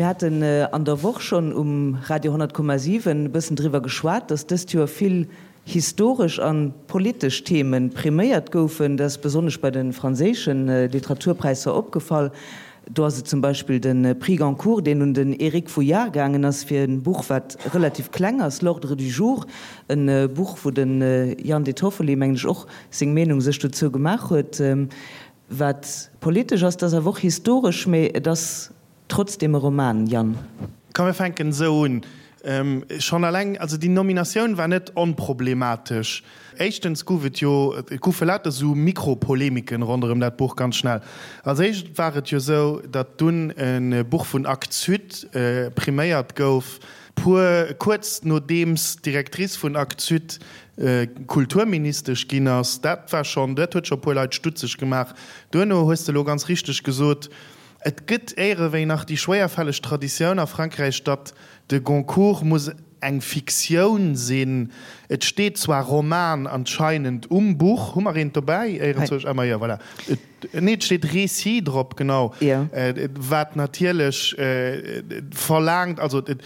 Mir haten an der Woch schonn um Radio 100,7 e bëssen driwwer geschwat, datt dëst Joer vill historesch a politesch Theme priméiert goufen. Dat ass besonnesch bei de franséische Literaturpräisser opgefall. Do ass et zum Beispill de Prix Goncourt, deen un den Éric Vuillard gaangen ass fir e Buch, wat relativ kleng ass, L'ordre du jour, e Buch, wou de Jan De Toffoli, mengen ech, och seng Meenung sech dozou gemaach huet. Wat politesch ass, dat ass awer och historesch, mee et ass trotzdem e Roman, Yann. Komm mir fänken esou un. Schonn eleng, also déi Nominatioun war net onproblematesch. Éischtens gouf et jo, et goufe lauter esou Mikropolemiken ronderëm dat Buch ganz schnell. Als éischt war et jo esou, datt dunn e Buch vun Actes Sud priméiert gouf, puer, kuerz nodeems d'Directrice vun Actes Sud Kulturministesch ginn ass. Dat war schonn, dat huet scho e puer Leit stutzeg gemaach. Duerno hues de elo ganz richteg gesot, Et gëtt éierewéi nach déi schwéierfälleg Traditioun a Frankräich, datt de Goncourt muss eng Fiktioun sinn. Et steet zwar Roman anscheinend um Buch. Hu mer eent dobäi? Éierenzwousch? Ah, ma jo, voilà. Nee, et steet Récit drop, genau. Wat natierlech verlaangt, also et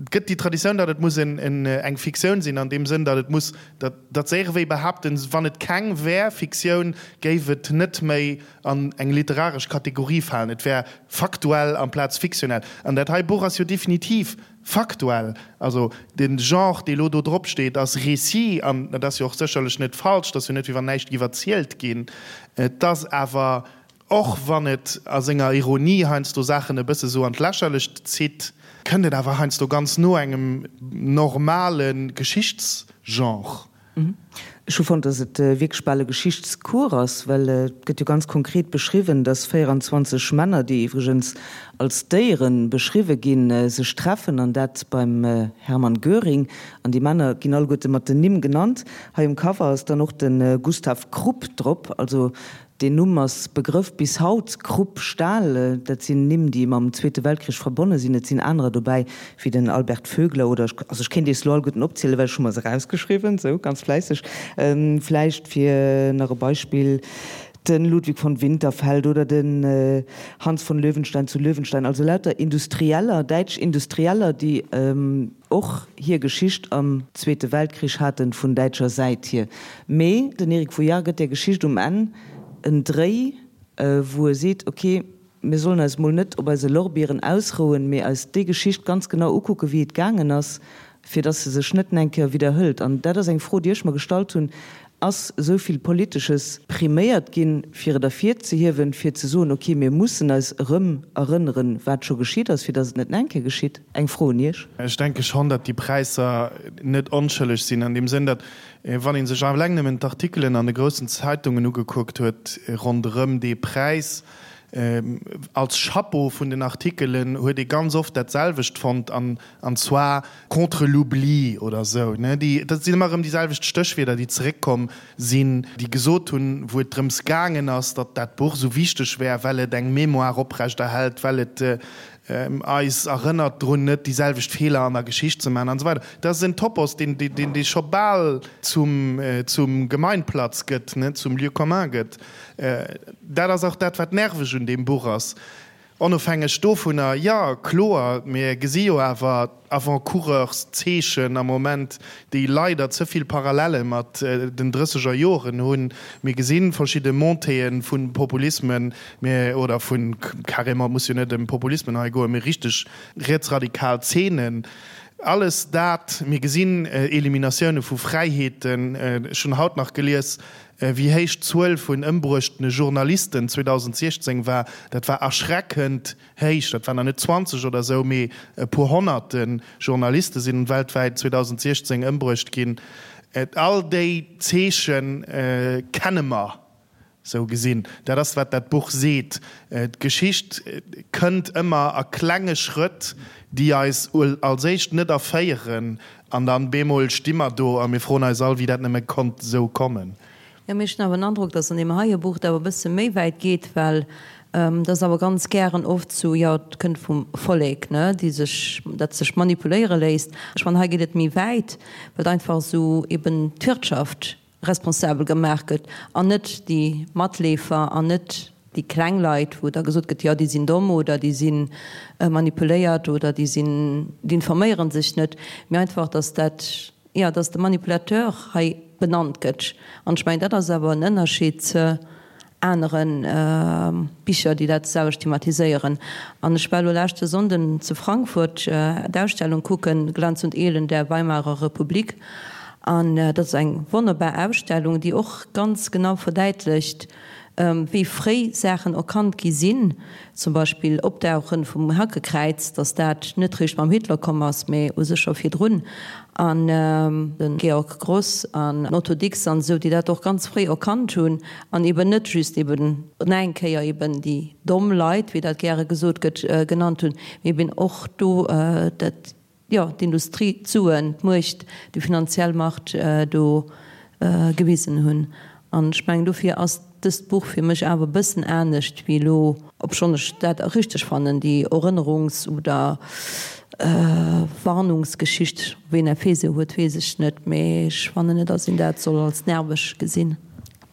gëtt déi Traditioun, datt et muss eng Fiktioun sinn, an deem Sënn, datt et muss, datt se éierewéi behaapten, wann et keng wär, Fiktioun, géif et net méi an eng literaresch Kategorie falen. Et wär faktuell amplaz fiktionell. An dat hei Buch ass jo definitiv faktuell. Also de Genre, dee lo do drop steet, ass Récit, an dat ass jo och sécherlech net falsch, et ass jo net, wéi wann näischt giff erzielt ginn. Et ass awer, och wann et a senger Ironie heiansdo Saachen e bësse sou an d'Lächerlecht zitt, kënnt et awer heiansdo ganz no engem normale Geschichtsgenre. Ech hu fonnt, dass et wierklech bal e Geschichtscours ass, well et gëtt jo ganz konkret beschriwwen, dass 24 Männer, déi iwwregens als Déiere beschriwwe ginn, sech treffen, an dat beim Hermann Göring. An déi Männer ginn alleguerte mat den Nimm genannt. Hei um Cover ass dann och de Gustav Krupp drop, also Deen Numm ass Begrëff bis haut, Krupp, Stahl, dat sinn Nimm, déi mam Zweete Weltkrich verbonne sinn. Et sinn anerer dobäi, wéi den Albert Vögler oder, also ech kéint Iech se elo alleguerten opzielen, well ech hu mer se erausgeschriwwen, sou ganz fläisseg. Vläicht fir nach e Beispill, de Ludwig von Winterfeld oder den Hans von Löwenstein zu Löwenstein, also lauter Industrieller, däitsch Industrieller, déi och hir Geschicht am Zweete Weltkrich haten, vun däitscher Säit hier. Mee den Eric Vuillard gëtt där Geschicht um Enn en Dréi, wou e seet, ok, mir sollen eis mol net op eise Lorbieren ausrouen, mee eis déi Geschicht ganz genau ukucken, wéi et gaangen ass, fir datt se sech net eng Kéier widderhëlt. An dat ass eng Fro, déi ech mer gestallt hunn, Ass esou vill Politesches priméiert ginn, fir et ervirzehiewen, fir ze soen, ok, mir mussen eis erëm erënneren, wat scho geschitt ass, fir datt et net nach eng Kéier geschitt? Eng Fro un Iech. Ech denke schonn, datt déi Präisser net onschëlleg sinn, an deem Sënn, datt, wann ee sech eleng nëmmen d'Artikelen an de groussen Zeitungen ugekuckt huet ronderëm dee Präis, als Chapeau vun den Artikelen huet ee ganz oft dat selwecht fonnt, an an zwar contre l'oubli oder esou, ne, déi, dat sinn ëmmer erëm déi selwecht Stéchwierder, déi zeréckkomm sinn, déi gesot hunn, wou et drëms gaangen ass, datt dat Buch esou wichteg wär, well et eng Mémoire oprechterhält, well et eis erënnert drun, net déi selwecht Feeler an der Geschicht ze maachen an esou weider. Dat ass en Topos, deen, deen, dee scho bal zum, zum Gemeinplatz gëtt, ne, zum Lieu commun gëtt. Dat ass och dat, wat nerveg un deem Buch ass. Onofhängeg dovunner, jo, kloer, mir gesi jo awer Avant-coureurs-Zeechen am Moment, déi leider ze vill Parallelle mat den drësseger Joren hunn. Mir gesi verschidde Montéeë vu Populismen, mir, oder vu carrément, et muss jo net ëm Populismen hei goen, mee richteg rietsradikal Zeenen. Alles dat, mir gesinn Eliminatioune vu Fräiheeten. Ech hunn haut nach gelies, Wéi héich d'Zuel vun ëmbruechtene Journalisten 2016 war, dat war erschreckend héich. Dat waren der net 20 oder esou, mee e puer honnerte Journaliste sinn weltwäit 2016 ëmbruecht ginn. All déi Zeeche kenne mer esou gesinn. Dat ass, wat dat Buch seet. D'Geschicht kënnt ëmmer a klenge Schrëtt, déi eis als éischt net erféieren An dann bemol sti mer do a mir froen eis all, wéi dat nëmme konnt esou kommen. Jo, mee ech hunn awer den Androck, dass an deem heie Buch et awer e bësse méi wäit geet, well et ass awer ganz gären oft sou, jo, et kënnt vum Vollek, ne, déi sech, dat sech manipuléiere léisst. Ech fannen, hei geet et méi wäit, well et einfach esou eben d'Wirtschaft responsabel gemaach gëtt an net déi Matleefer an net. déi kleng Leit, wou da gesot gëtt, jo déi sinn domm oder déi si manipuléiert oder déi sinn, déi informéiere sech net, mee einfach, datt dat, jo, datt de Manipulateur hei benannt gëtt. An ech mengen, dat ass awer en Ënnerscheed ze anere Bicher, déi dat selwecht thematiséieren. An ech war elo leschte Sonnden zu Frankfurt d'Ausstellung kucken, Glanz und Elend der Weimarer Republik. An dat ass eng wonnerbar Ausstellung, déi och ganz genau verdäitlecht, wéi fréi Saachen erkannt gi sinn, zum Beispill Opdauchen vum Hakekräiz, datt dat net réischt mam Hitler komm ass, mä u sech scho virdrun, an de Georg Gross an Otto Dix an esou, déi dat och ganz fréi erkannt hunn an eben net just eben nach eng Kéier eben déi domm Leit, wéi dat gäre gesot gëtt, genannt hunn, mä eben och do dat jo, d'Industrie, d'Suen, d'Muecht, déi finanziell Macht do gewisen hunn. An ech mengen, dofir ass dëst Buch fir mech awer e bëssen anescht wéi elo, obschonn ech dat richteg fannen, déi Erënnerungs oder Warnungsgeschicht, ween Effet se huet, weess ech net, mee ech fannen net, datt een dat soll als nerveg gesinn.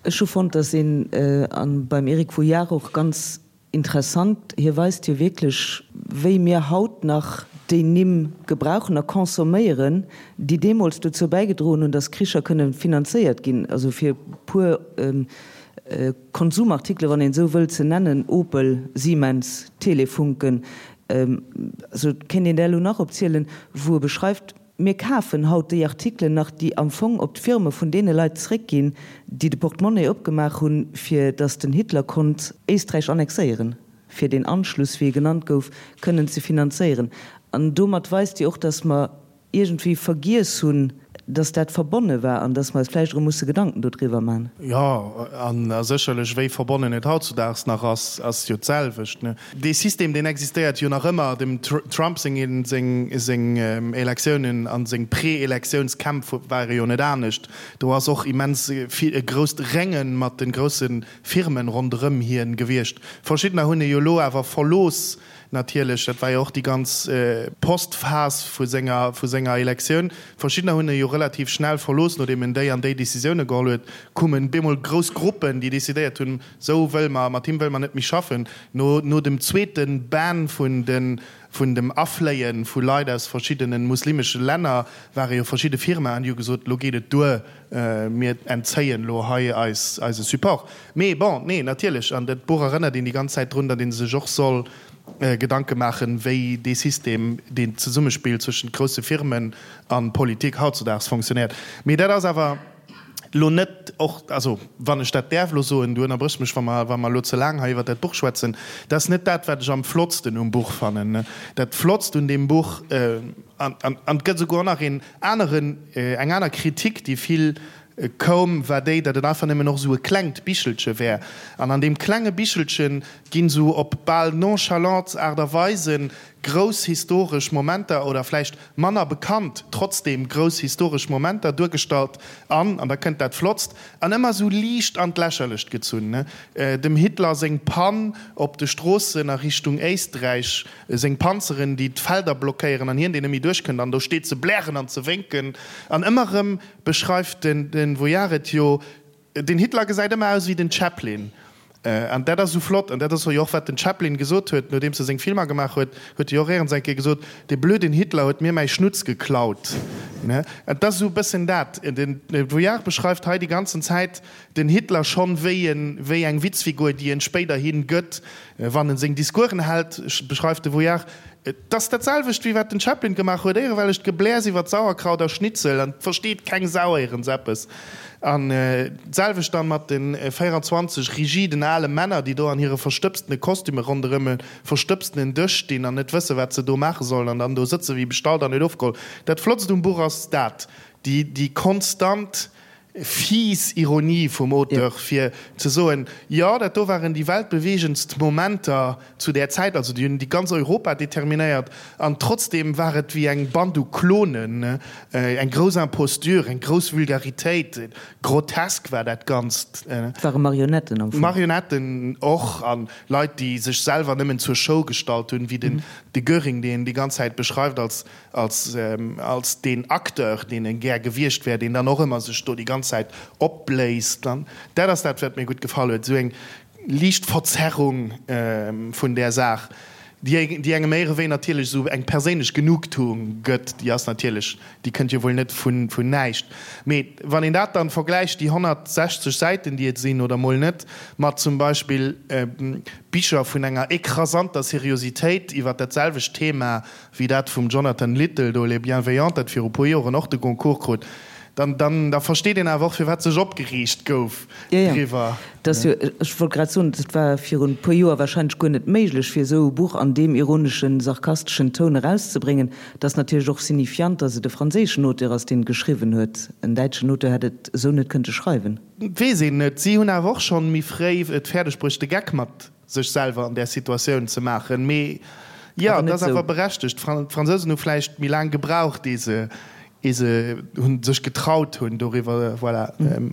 Ech hu fonnt, datt een, a beim Eric Vuillard och ganz Interessant, hie weist jo wierklech, wéi mir haut nach déi Nimm gebrauchen a consomméieren, déi deemools dozou bäigedroen hunn, datt Kricher kënne finanzéiert ginn. Also fir e puer Konsumartikele, wann een esou wëll, ze nennen, Opel, Siemens, Telefunken, also et kéint een där elo nach opzielen, wou e beschreift, Mir kafen haut déi Artikelen nach, déi am Fong op d'Firme vun deene Leit zréckginn, déi de Portemonnaie opgemaach hunn, fir datt den Hitler konnt Éisträich annexéieren, fir deen Anschluss, wéi e genannt gouf, kënnen ze finanzéieren. An domat weist Dir och, datt mer iergendwéi vergiess hunn, datt dat verbonne war an datt mer eis vläicht erëm musse Gedanken dodriwwer man. Jo, a sécherlech, wéi verbonnen et hautzudaags nach ass, ass jo d'selwecht. Dee System, deen existéiert jo nach ëmmer. Dem Trump seng Elektiounen a seng Pre-Elektiounskämpf ware jo net anescht. Do ass och immens vill e grousst Rénge mat de grousse Firmen ronderëm hien gewiescht. Verschiddener hunn e jo elo awer verlooss natierlech. Dat war jo och déi ganz Post-Phas vu senger vu senger Elektioun. Verschiddener hunn e jo relativ schnell verlooss, nodeem en déi an déi Decisioune geholl huet, koumen bemol grouss Gruppen, déi decidéiert hunn, Sou wëlle mer, mat him wëlle mer net méi schaffen. No no dem zweete Ban vun de vun dem Afléie vu Leit aus verschiddene muslimesche Länner ware jo verschidde Firmaen, déi hu gesot, lo geet et duer, mir entzéien lo hei eis eise Support. Mee bon, nee, natierlech, an dat Buch erënnert een déi ganz Zäit drun, datt ee sech och soll Gedanke maachen, wéi dee System, deen Zesummespill zwëschent grousse Firmen a Politik hautzudaags fonctionnéiert. Mee dat ass awer. Lo net och, also wann ech dat däerf elo soen, du ënnerbréchs mech, wa mer, wa mer elo ze laang hei iwwert dat Buch schwätzen, dat ass net dat, wat ech am flottsten um Buch fannen. Dat Flottst un deem Buch, an, an, an et gëtt esouguer och nach een aneren, eng aner Kritik, déi vill koum, war déi, datt et einfach nëmmen och esou e klengt Bichelche wär. An an deem klenge Bichelche ginn esou op bal nonchalant Aart a Weise grouss historesch Momenter oder vläicht manner bekannt, trotzdem grouss historesch Momenter duergestallt an, an da kënnt dat Flottst, an ëmmer esou liicht an d'Lächerlecht gezunn, dem Hitler seng Pann op de Stroossen a Richtung Éisträich, seng Panzeren, déi d'Felder blockéieren an hien, deen net méi duerchkënnt an do steet ze blären an ze wénken. An ëmmer erëm beschreift den Vuillard et jo, Den Hitler gesäit ëmmer aus wéi den Chaplin. An dat ass esou flott. An dat ass jo och, wat den Chaplin gesot huet, nodeems e seng Filmer gemaach huet, huet e jo och éierens eng Kéier gesot, Dee blöden Hitler huet mir mäi Schnutz geklaut. An et ass esou e bëssen dat. Den Vuillard beschreift hei déi ganzen Zäit den Hitler schonn wéi en, wéi eng Witzfigur, déi en spéiderhi gëtt, wann en seng Discoursen hält, beschreift de Vuillard, Et ass dat selwecht wéi wat den Chaplin gemaach huet, éierewellecht Gebläers iwwert Sauerkraut a Schnitzel an et versteet keng Sau éierens eppes. An d'selwecht dann mat den 24 rigiden ale Männer, déi do an hire verstëbstene Kostüme ronderëm e verstëbstenen Dësch stinn an net wësse wat se do maache sollen an dann do sëtze wéi bestallt an net ofgeholl. Dat Flottst um Buch ass dat, déi déi konstant Fies Ironie vum Auteur, fir ze soen, jo, dat do waren déi weltbeweegendst Momenter zu där Zäit, also déi hunn déi ganz Europa determinéiert, an trotzdem war et wéi eng Band u Klonen, eng grouss Imposture, eng grouss Vulgaritéit, grotesk war dat Ganzt. Et ware Marionetten am Fong. Marionetten och, a Leit, déi sech selwer nëmmen zur Show gestallt hunn, wéi den de Göring, deen déi ganz Zäit beschreift als als als deen Acteur, deen e gär gewiescht wär, deen dann och ëmmer sech do déi ganz Zäit opbléist. An dat ass dat, wat mir gutt gefall huet, esou eng. liicht Verzerrung vun där Saach, déi engem éierewéi natierlech esou eng perséinlech Genugtuung gëtt, déi ass natierlech, déi kënnt jo wuel net vun näischt. Mee wann een dat dann vergläicht, déi 160 Säiten, déi et sinn, oder mol net, mat zum Beispill Bicher vun enger écrasanter Seriositéit iwwer dat selwecht Thema, wéi dat vum Jonathan Little do, Les Bienveillants, dat viru puer Joren och de Goncourt krut, dann, dann, da versteet een awer och, firwat sech opgereegt gouf driwwer. Dat ass jo, ech wollt grad soen, dat war virun e puer Joer wahrscheinlech guer net méiglech, fir esou e Buch an deem ironeschen, sarkasteschen Toun erauszebréngen. Et ass natierlech och signifiant, datt et e franséischen Auteur ass, deen et geschriwwen huet. En däitschen Auteur hätt et esou net kënnte schreiwen. Weess een net. Si hunn awer och schonn méi fréi et fäerdeg bruecht, de Geck mat sech selwer an där Situatioun ze maachen. Mee jo, et ass awer berechtegt. D'Fransousen hu vläicht méi laang gebraucht, ee se, ee se hunn sech getraut hunn, doriwwer, voilà,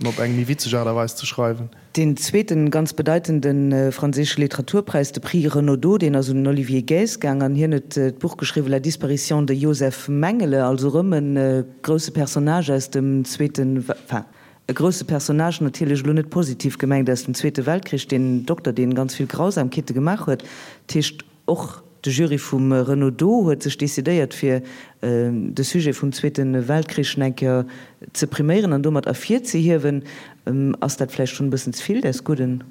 op eng méi witzeg Aart a Weis ze schreiwen. Deen zweeten ganz bedeitende franséische Literaturpräis, de Prix Renaudot, deen ass un den Olivier Guez gaang an hien huet d'Buch geschriwwen La disparition de Josef Mengele, also erëm e grousse Personnage aus dem Zweeten, enfin, E grousse Personnage, natierlech elo net positiv gemengt, aus dem Zweete Weltkrich, deen Dokter, deen ganz vill Grausamkeete gemaach huet. Dat heescht, och de Jury vum Renaudot huet sech decidéiert, fir de Sujet vum Zweete Weltkrich nach eng Kéier ze priméieren an domat ervirzehiewen. Ass dat vläicht schonn e bëssen ze vill des Gudden?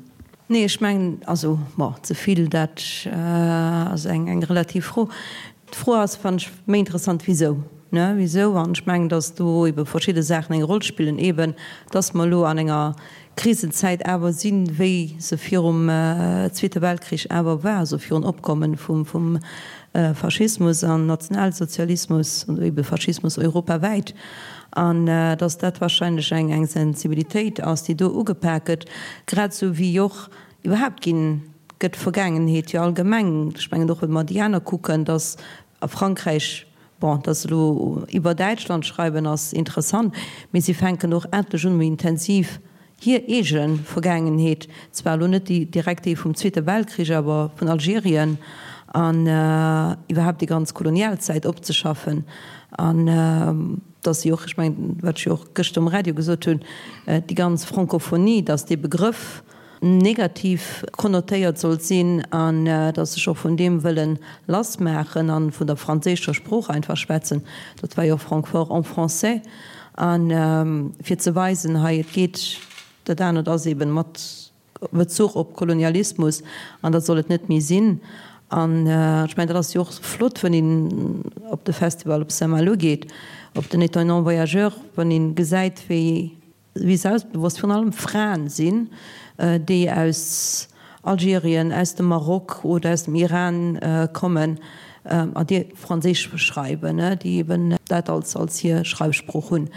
Nee, ech mengen, also, bon, ze vill, dat ass eng relativ Fro. D'Fro ass, fannen ech, méi interessant, Wisou? Ne, wisou? An ech mengen, datt do ebe verschidde Saachen eng Roll spillen, eben datt mer elo an enger Krisenzäit awer sinn, wéi se virum Zweete Weltkrich awer war, also virun Opkommen vum vum Faschismus an Nationalsozialismus oder ebe Faschismus europawäit, an datt dat wahrscheinlech eng eng Sensibilitéit ass, déi do ugepak gëtt, grad esou wéi och Iwwerhaapt ginn, gëtt d'Vergaangenheet jo allgemeng, ech mengen och wa mer déi aner kucken, datt a Frankräich, bon, datt se elo iwwer Däitschland schreiwen ass interessant, mee si fänken och endlech un méi intensiv hir eege Vergaangenheet, zwar elo net déi direkt déi vum Zweete Weltkrich, awer vun Algerien an iwwerhaapt déi ganz Kolonialzäit opzeschaffen an datt si och, ech mengen wat ech jo och gëschter um Radio gesot hunn, déi ganz Francophonie, datt dee Begrëff, negativ konnotéiert sollt sinn an datt sech och vun deem wëllen lass maachen an vun der franséischer Sprooch einfach schwätzen, dat war jo och Francfort en français, an fir ze weisen, hei et geet, dat anert ass eben mat Bezuch op Kolonialismus an dat soll et net méi sinn. An ech mengen, dat ass jo och flott, wann een op de Festival op Saint-Malo geet, op den Étonnants Voyageurs, wann ee gesäit wéi wéi selbstbewosst virun allem Fraen sinn, déi aus Algerien, aus dem Maroc oder aus dem Iran kommen a déi Franséisch schreiwen, déi eben dat als als hir Schreifsprooch hunn.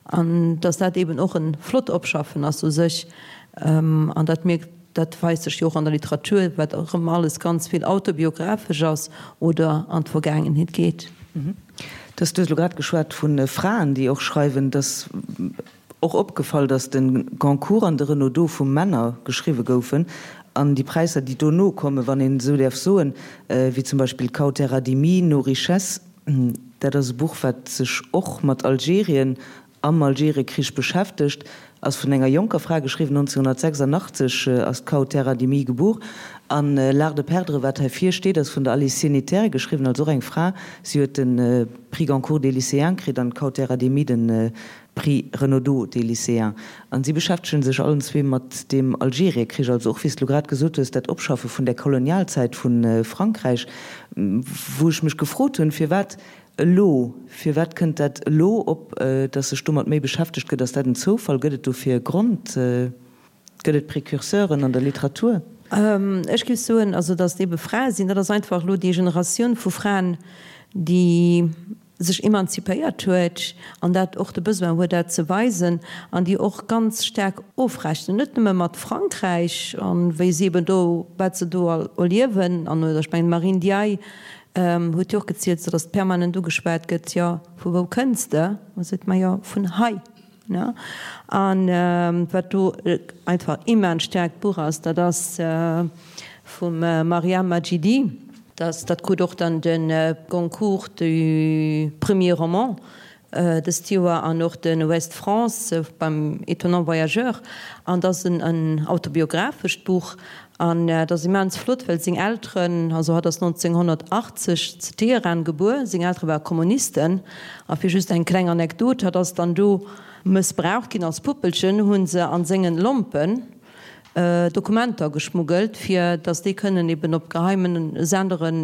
An datt dat eben och e flott Opschaffen ass u sech. An dat mierkt, dat weist sech jo och an der Literatur, wat erëm alles ganz vill autobiographesch ass oder an d'Vergaangenheet geet. Du hues elo grad geschwat vu Fraen, déi och schreiwen. Et ass och opgefall, datt de Goncourt an de Renaudot vu Männer geschriwwe goufen. An déi Präisser, déi dono kommen, wann een esou däerf soen, wéi zum Beispill Kaoteradimi, Nos richesses, dat ass e Buch, wat sech och mat Algerien am Algeriekrich beschäftegt, ass vun enger jonker Fra geschriwwen, 1986 ass d'Kaoutera Dimi gebuer. An L'art de perdre, wat hei vir steet, ass vun der Alice Sénétaire geschriwwen, also och eng Fra. Si huet de Prix Goncourt des lycéens kritt an d'Kaoutera Dimi de Prix Renaudot des lycéens. An si beschäftegen sech allen zwee mat deem Algeriekrich, also och, wéi s de lo grad gesot hues, dat Opschaffe vun där Kolonialzäit vu Frankräich, wou ech mech gefrot hunn, firwat Elo? Firwat kënnt dat elo op, datt sech domat méi beschäftegt gëtt? Ass dat en Zoufall? Gëtt et dofir e Grond? Gëtt et Precurseuren an der Literatur? Ech géif soen, also datt et ebe Frae sinn, dat ass einfach elo déi Generatioun vu Fraen, déi sech emanzipéiert huet an dat och de Besoin huet, dat ze weisen an déi och ganz staark ofrechnen, net nëmme mat Frankräich an wéi si eben do, wat se do erliewen an, oder ech mengen d'Marine Ndiaye Huet jo och gezielt, sou datt permanent ugeschwat gëtt, jo, vu wou kënns de? A seet, ma jo, vun hei. Ne? An wat do einfach immens staarkt Buch ass, dat ass vum Maryam Madjidi. Dat, dat krut och dann de Goncourt du premier roman. Dëst Joer an och de Ouest France beim Étonnant Voyageur. An et ass en autobiographescht Buch an et ass immens flott, well seng Elteren, also hatt ass 1980 zu Teheran gebuer, seng Eltere ware Kommunisten. A fir just eng kleng Anekdot, hatt ass dann do mëssbraucht ginn als Puppelchen, hu se a sengen Lompen Dokumenter geschmuggelt, fir datt déi kënnen eben op geheimen Senderen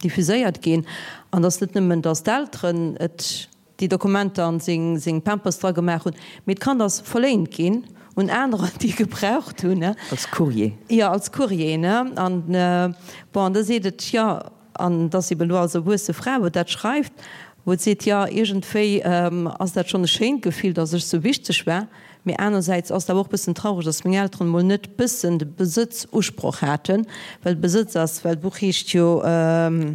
diffuséiert ginn. An datt net nëmmen, datt d'Elteren et déi Dokumenter an seng seng Pampers dra gemaach hunn, mee d'Kand ass verléint ginn un anerer, déi e gebraucht hunn. Als Courrier. Jo, als Courrier, ne. An bon, an da seet et, jo, an et ass eben elo als erwuesse Fra, wou dat schreift, wou et seet, jo, iergendwéi ass dat schonn e schéint Gefill, datt ech sou wichteg war, Mee anersäits ass et awer och bëssen traureg, dass meng Elteren emol net bëssen de Besëtzusproch haten, well Besëtz ass, well d'Buch heescht jo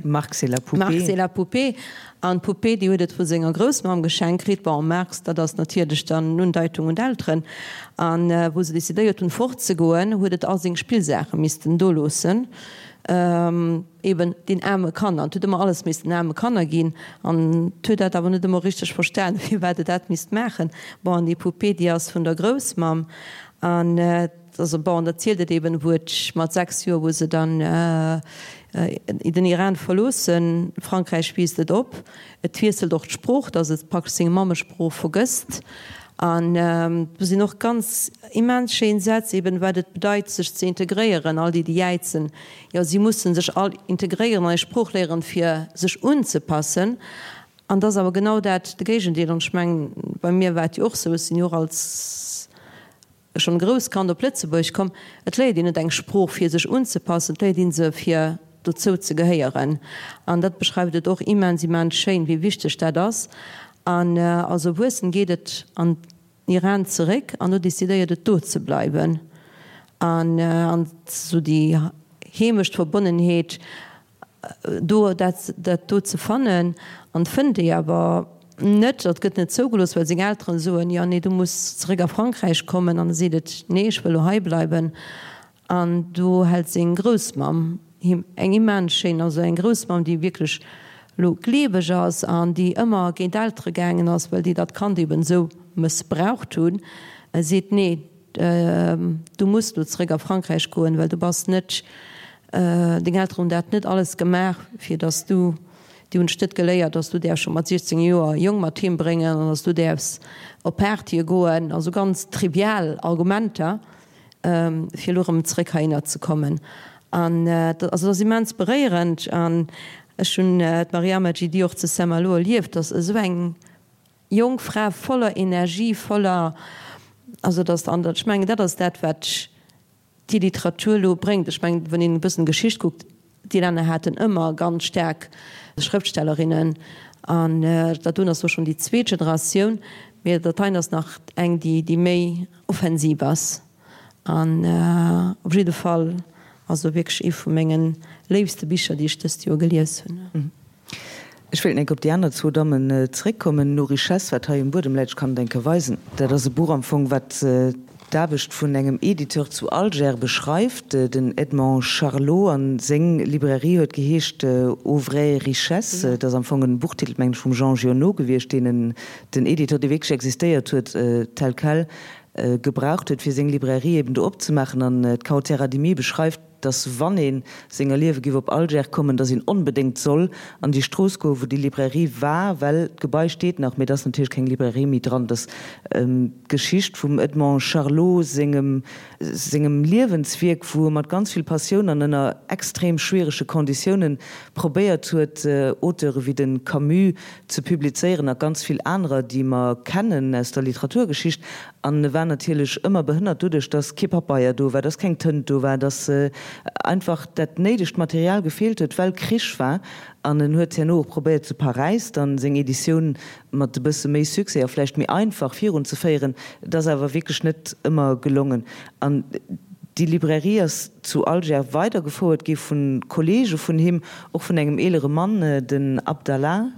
Marx et la poupée. Marx et la poupée. An d'Poupée, déi huet et vu senger Groussmamm geschenkt kritt. Bon, Marx, dat ass natierlech dann en Undeitung un d'Elteren. An wou se decidéiert hunn, fortzegoen, huet et all seng Spillsaache missten do loossen. Eben den aarme Kanner. Et huet ëmmer alles missten aarme Kanner ginn. An et huet dat awer net ëmmer richteg verstan, firwat et dat misst maachen. Bon, an déi Poupée, déi ass vun der Groussmamm. An also bon, an da zielt et eben, wou et mat 6 Joer, wou se dann den Iran verloossen, Frankräich wiisst et op, et wiesselt och d'Sprooch, datt et praktesch seng Mammesprooch vergësst. An do sinn och ganz immens schéin Sätz, eben wat et bedeit, sech ze integréieren, all déi, déi jäizen, Jo, si mussen sech all integréieren an eng Sprooch léieren, fir sech unzepassen. An et ass awer genau dat de Géigendeel. An ech mengen, bei mir war et jo och sou, ech sinn jo och als schonn grousst Kand op Lëtzebuerg komm, et léiert een net eng Sprooch, fir sech unzepassen, et léiert ee se, fir dozou ze gehéieren. An dat beschreift et och immens, immens schéin, wéi wichteg dat ass. An als Erwuessen geet et an Iran zeréck an do decidéiert et do ze bleiwen an an sou déi Heemechtverbonnenheet do dat dat do ze fannen an fënnt déi awer net. Dat gëtt net zougelooss, well seng Elteren soen, jo nee du muss zeréck a Frankräich kommen an e seet et nee ech wëll lo hei bleiwen. An do hält seng Groussmamm him eng immens schéin, also eng Groussmamm, déi wierklech elo gleeweg ass an déi ëmmer géint d'Eltere gaangen ass, well déi dat Kand eben esou mëssbraucht hunn, seet, Nee, du muss elo zeréck a Frankräich goen, well du bass net, deng Elteren hunn dat net alles gemaach, fir dass du, déi hunn dech net geléiert, dass du däerfs scho mat 16 Joer Jong mat heem bréngen an dass du däerfs op Partye goen, also ganz trivial Argumenter. fir elo erëm zréck heihinner ze kommen. An also dat ass immens beréierend. An ech hunn d'Mariama Djidi och zu Saint-Malo erlieft, dass esou eng jonk Fra voller Energie, voller, also dass, an ech mengen, dat ass dat, wat déi Literatur elo bréngt. Ech mengen, wann een e bëssen Geschicht kuckt, déi Länner haten ëmmer ganz staark Schrëftstellerinnen. An dat doen ass elo schonn déi zweet Generatioun, mee dat heien ass nach eng, déi, déi méi, offensiv ass an op jidde Fall also wierklech ee vu mengen léifste Bicher déi ech dëst Joer gelies hunn. Ech wéilt enk op déi aner zwou Dammen zeréckkommen. Nos richesses, wat hei um Buedem läit, ech kann et eng Kéier weisen, dat ass e Buch am Fong, wat d'Aarbecht vun engem Editeur zu Alger beschreift, den Edmond Charlot, a seng Librairie huet geheescht Aux vraies richesses. Dat ass am Fong en Buchtitel, mengen ech, vum Jean Giono gewiescht, deen en den Editeur, dee wierklech existéiert huet, tel quel gebraucht huet, fir seng Librairie eben do opzemaachen. An d'Kaouther Adimi beschreift, dass wann ee senger Liewe giff op Alger kommen, dass een onbedéngt soll an déi Strooss goen, wou déi Librairie war, well d'Gebai steet nach, mee et ass natierlech keng Librairie méi dran. Et ass d'Geschicht vum Edmond Charlot sengem sengem Liewenswierk, wou e mat ganz vill Passioun an ënner extrem schwierege Konditiounen probéiert huet, Auteure wéi de Camus ze publizéieren a ganz vill anerer, déi mer kennen aus der Literaturgeschicht. An e war natierlech ëmmer behënnert doduerch, datt kee Papeier do war, datt keng Tënt do war, datt einfach dat néidegt Material gefeelt huet, well Krich war. An en huet herno och probéiert zu Paräis dann seng Editioun mat e bësse méi Succès a vläicht méi einfach virunzeféieren. Et ass awer wierklech net ëmmer gelongen. An déi Librairie ass zu Alger weidergefouert gi vu Kollege vun him, och vun engem eelere Mann, den Abdallah,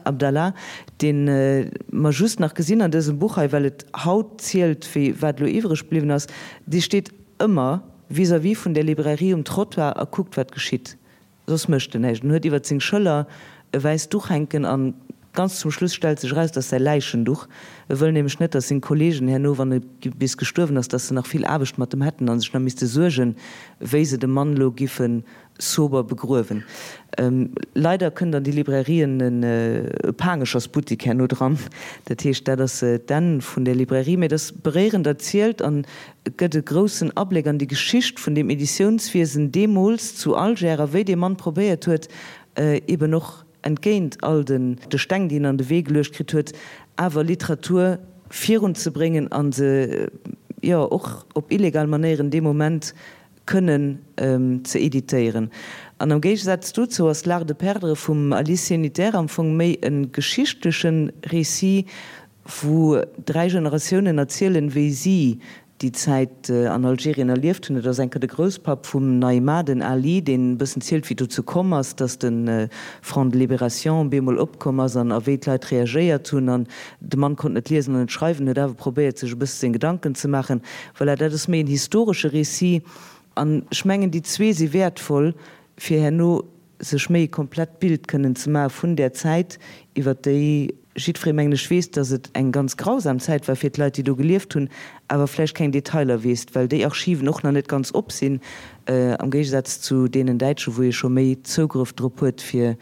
Abdallah, dee mer just nach gesinn an dësem Buch hei, well et haut zielt, wéi wat elo iwwreg bliwwen ass. Dee steet ëmmer vis-à-vis vun där Librairie um Trottoir a kuckt, wat geschitt. Soss mécht en näischt. En huet iwwert seng Schëller e wäisst Duch hänken an. Ganz zum Schluss stellt sech eraus, dass säi Läichenduch, e wëll nämlech net, dass seng Kollegen herno, wann e bis gestuerwen ass, dass se nach vill Aarbecht mat em hätten a sech nach misste suergen, wéi se de Mann elo giffe sober begruewen. Leider kënnt an déi Librairien e Paangechersbuttik herno dran. Dat heescht, dat ass d'Enn vun där Librairie. Mee et ass beréierend erzielt an et gëtt e groussen Abléck an déi Geschicht vun deem Editiounswiesen deemools zu Alger a wéi dee Mann probéiert huet, eben och entgéint all de Steng, déi en an de Wee geluecht kritt huet, awer Literatur virunzebréngen a se, jo, och op illegal Manéieren dee Moment kënnen ze editéieren. An am Géigesaz dozou ass L'art de perdre vum Alice Sénitaire am Fong méi e geschichtleche Récit, wou 3 Generatiounen erzielen, wéi si déi Zäit an Algerien erlieft hunn. Et ass eng Kéier de Grousspapp vum Naïma, den Ali, deen e bëssen zielt, wéi dozou komm ass, datt de Front de Libération bemol opkomm ass an a wéi d'Leit reagéiert hunn. An de Mann konnt net liesen an net schreiwen, huet awer probéiert, sech e bësse seng Gedanken ze maachen. Voilà, dat ass méi en historesche Récit. An ech mengen, déi zwee si wäertvoll, fir herno sech méi e komplett Bild kënnen ze maache vun där Zäit, iwwer déi jiddweree, mengen ech, weess, datt et eng ganz grausam Zäit war fir d'Leit, déi do gelieft hunn, awer vläicht keng Detailer weess, well déi Archiven och nach net ganz op sinn, am Géigesaz zu deenen däitschen, wou ee scho méi Zougrëff drop huet, fir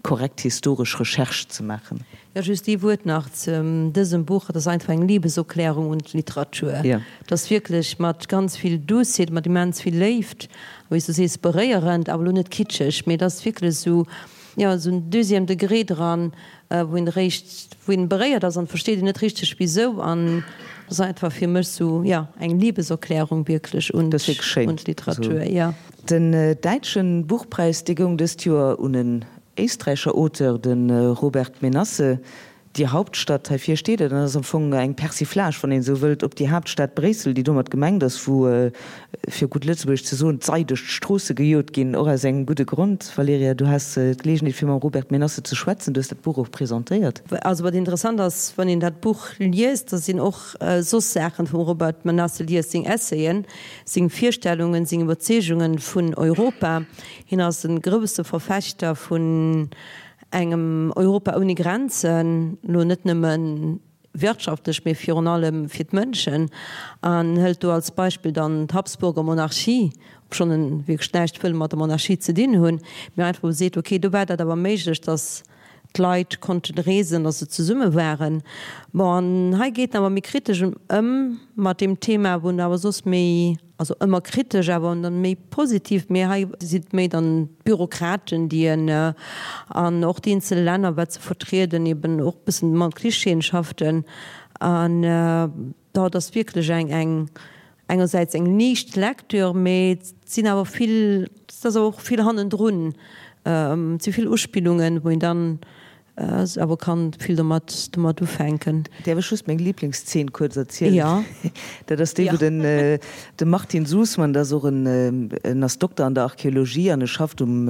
korrekt historesch Recherche ze maachen. Jo, just ee Wuert nach zu dësem Buch, Et ass einfach eng Liebeserklärung un d'Literatur. Et ass wierklech mat ganz vill Douceet, mat immens vill Léift, wéi s du sees, beréierend, awer elo net kitscheg, mee et ass wierklech esou, jo, esou en deuxième degré dran, wou een eréischt, wou een beréiert ass an versteet een net richteg wisou an et ass einfach fir mech esou, jo, eng Liebeserklärung wierklech un d'Literatur, jo. Den däitschen Buchpräis, dee goung dëst Joer un en éisträicher Auteur, de Robert Menasse. Die Hauptstadt, heivir steet et, an ass am Fong eng Persiflage, wann een esou wëllt, op déi Haaptstad Bréissel, déi domat gemengt ass, wou, fir gutt Lëtzebuergesch ze soen, d'Sei duerch d'Stroosse gejot ginn, och aus engem gudde Grond. Valerija, du has d'Geleegenheet, fir mam Robert Menasse ze schwätzen, du hues dat Buch och presentéiert. Also wat interessant ass, wann een dat Buch liest, da sinn och soss Saachen vum Robert Menasse liest, seng Essayen, seng Virstellungen, seng Iwwerzeegungen vun Europa. Hien ass e grousse Verfechter vun engem Europa ouni Grenzen, elo net nëmme wirtschaftlech, mee virun allem fir d'Mënschen, an hëlt do als Beispill dann d'Habsburger Monarchie, obschonn en wierklech näischt wëll mat der Monarchie ze dinn hunn, mee einfach wou e seet, okay, do war dat awer méiglech, datt d'Leit konnten reesen, datt se zesumme waren. Bon, an hei geet en awer méi kritesch ëm mat deem Thema, wou en awer soss méi Also ëmmer kritesch, awer dann méi positiv. Mee hei sinn et méi dann d'Bürokraten, déi en, an och déi eenzel Länner, wat se vertrieden, eben och e bëssen mat Klischeeën schafften. An dat ass wierklech eng, eng engersäits eng liicht Lecture, mee et sinn awer vill, et ass awer och vill hannendrun, et si vill Uspillungen, wou een dann Awer kann vill domat domat ufänken. Däerf ech just meng Liblingszeen kuerz erzielen? Jo. Dat ass déi, wou den de Martin Susman, dat ass och en en ass Dokter an der Archeologie an e schafft um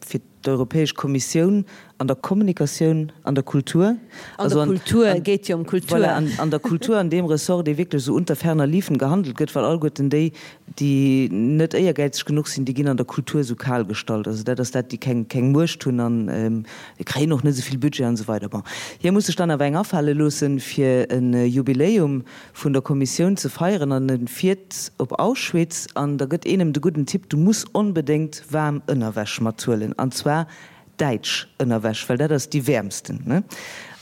fir d'Europäesch Kommissioun an der Kommunikatioun, an der Kultur. An der Kultur, et geet jo ëm Kultur. Voilà, an an der Kultur, an deem Ressort, dee wierklech esou unter ferner liefen gehandelt gëtt, well alleguerten déi, déi net éiergäizeg genuch sinn, déi ginn an der Kultur esou kal gestallt. Also dat ass dat, déi keng keng Muecht hunn an déi kréien och net esou vill Budget an esou weider. Bon, hie muss sech dann awer eng afale loossen, fir e Jubiläum vun der Kommissioun ze feieren an e fiert op Auschwitz an da gëtt een em de gudden Tipp, du muss onbedéngt waarm Ënnerwäsch mathuelen an zwar däitsch Ënnerwäsch, well dat ass déi wäermsten, ne?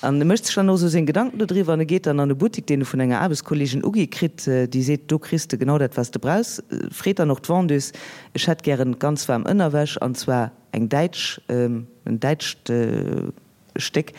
An e mécht sech dann och esou seng Gedanken dodriwwer an e geet dann an e Buttik, deen e vun enger Aarbechtskolleegin ugi kritt, déi seet, do kriss de genau dat, wat s de brauchs. Freet dann och d'Vendeuse, ech hätt gären ganz waarm Ënnerwäsch, an zwar eng däitsch, en däitscht Stéck.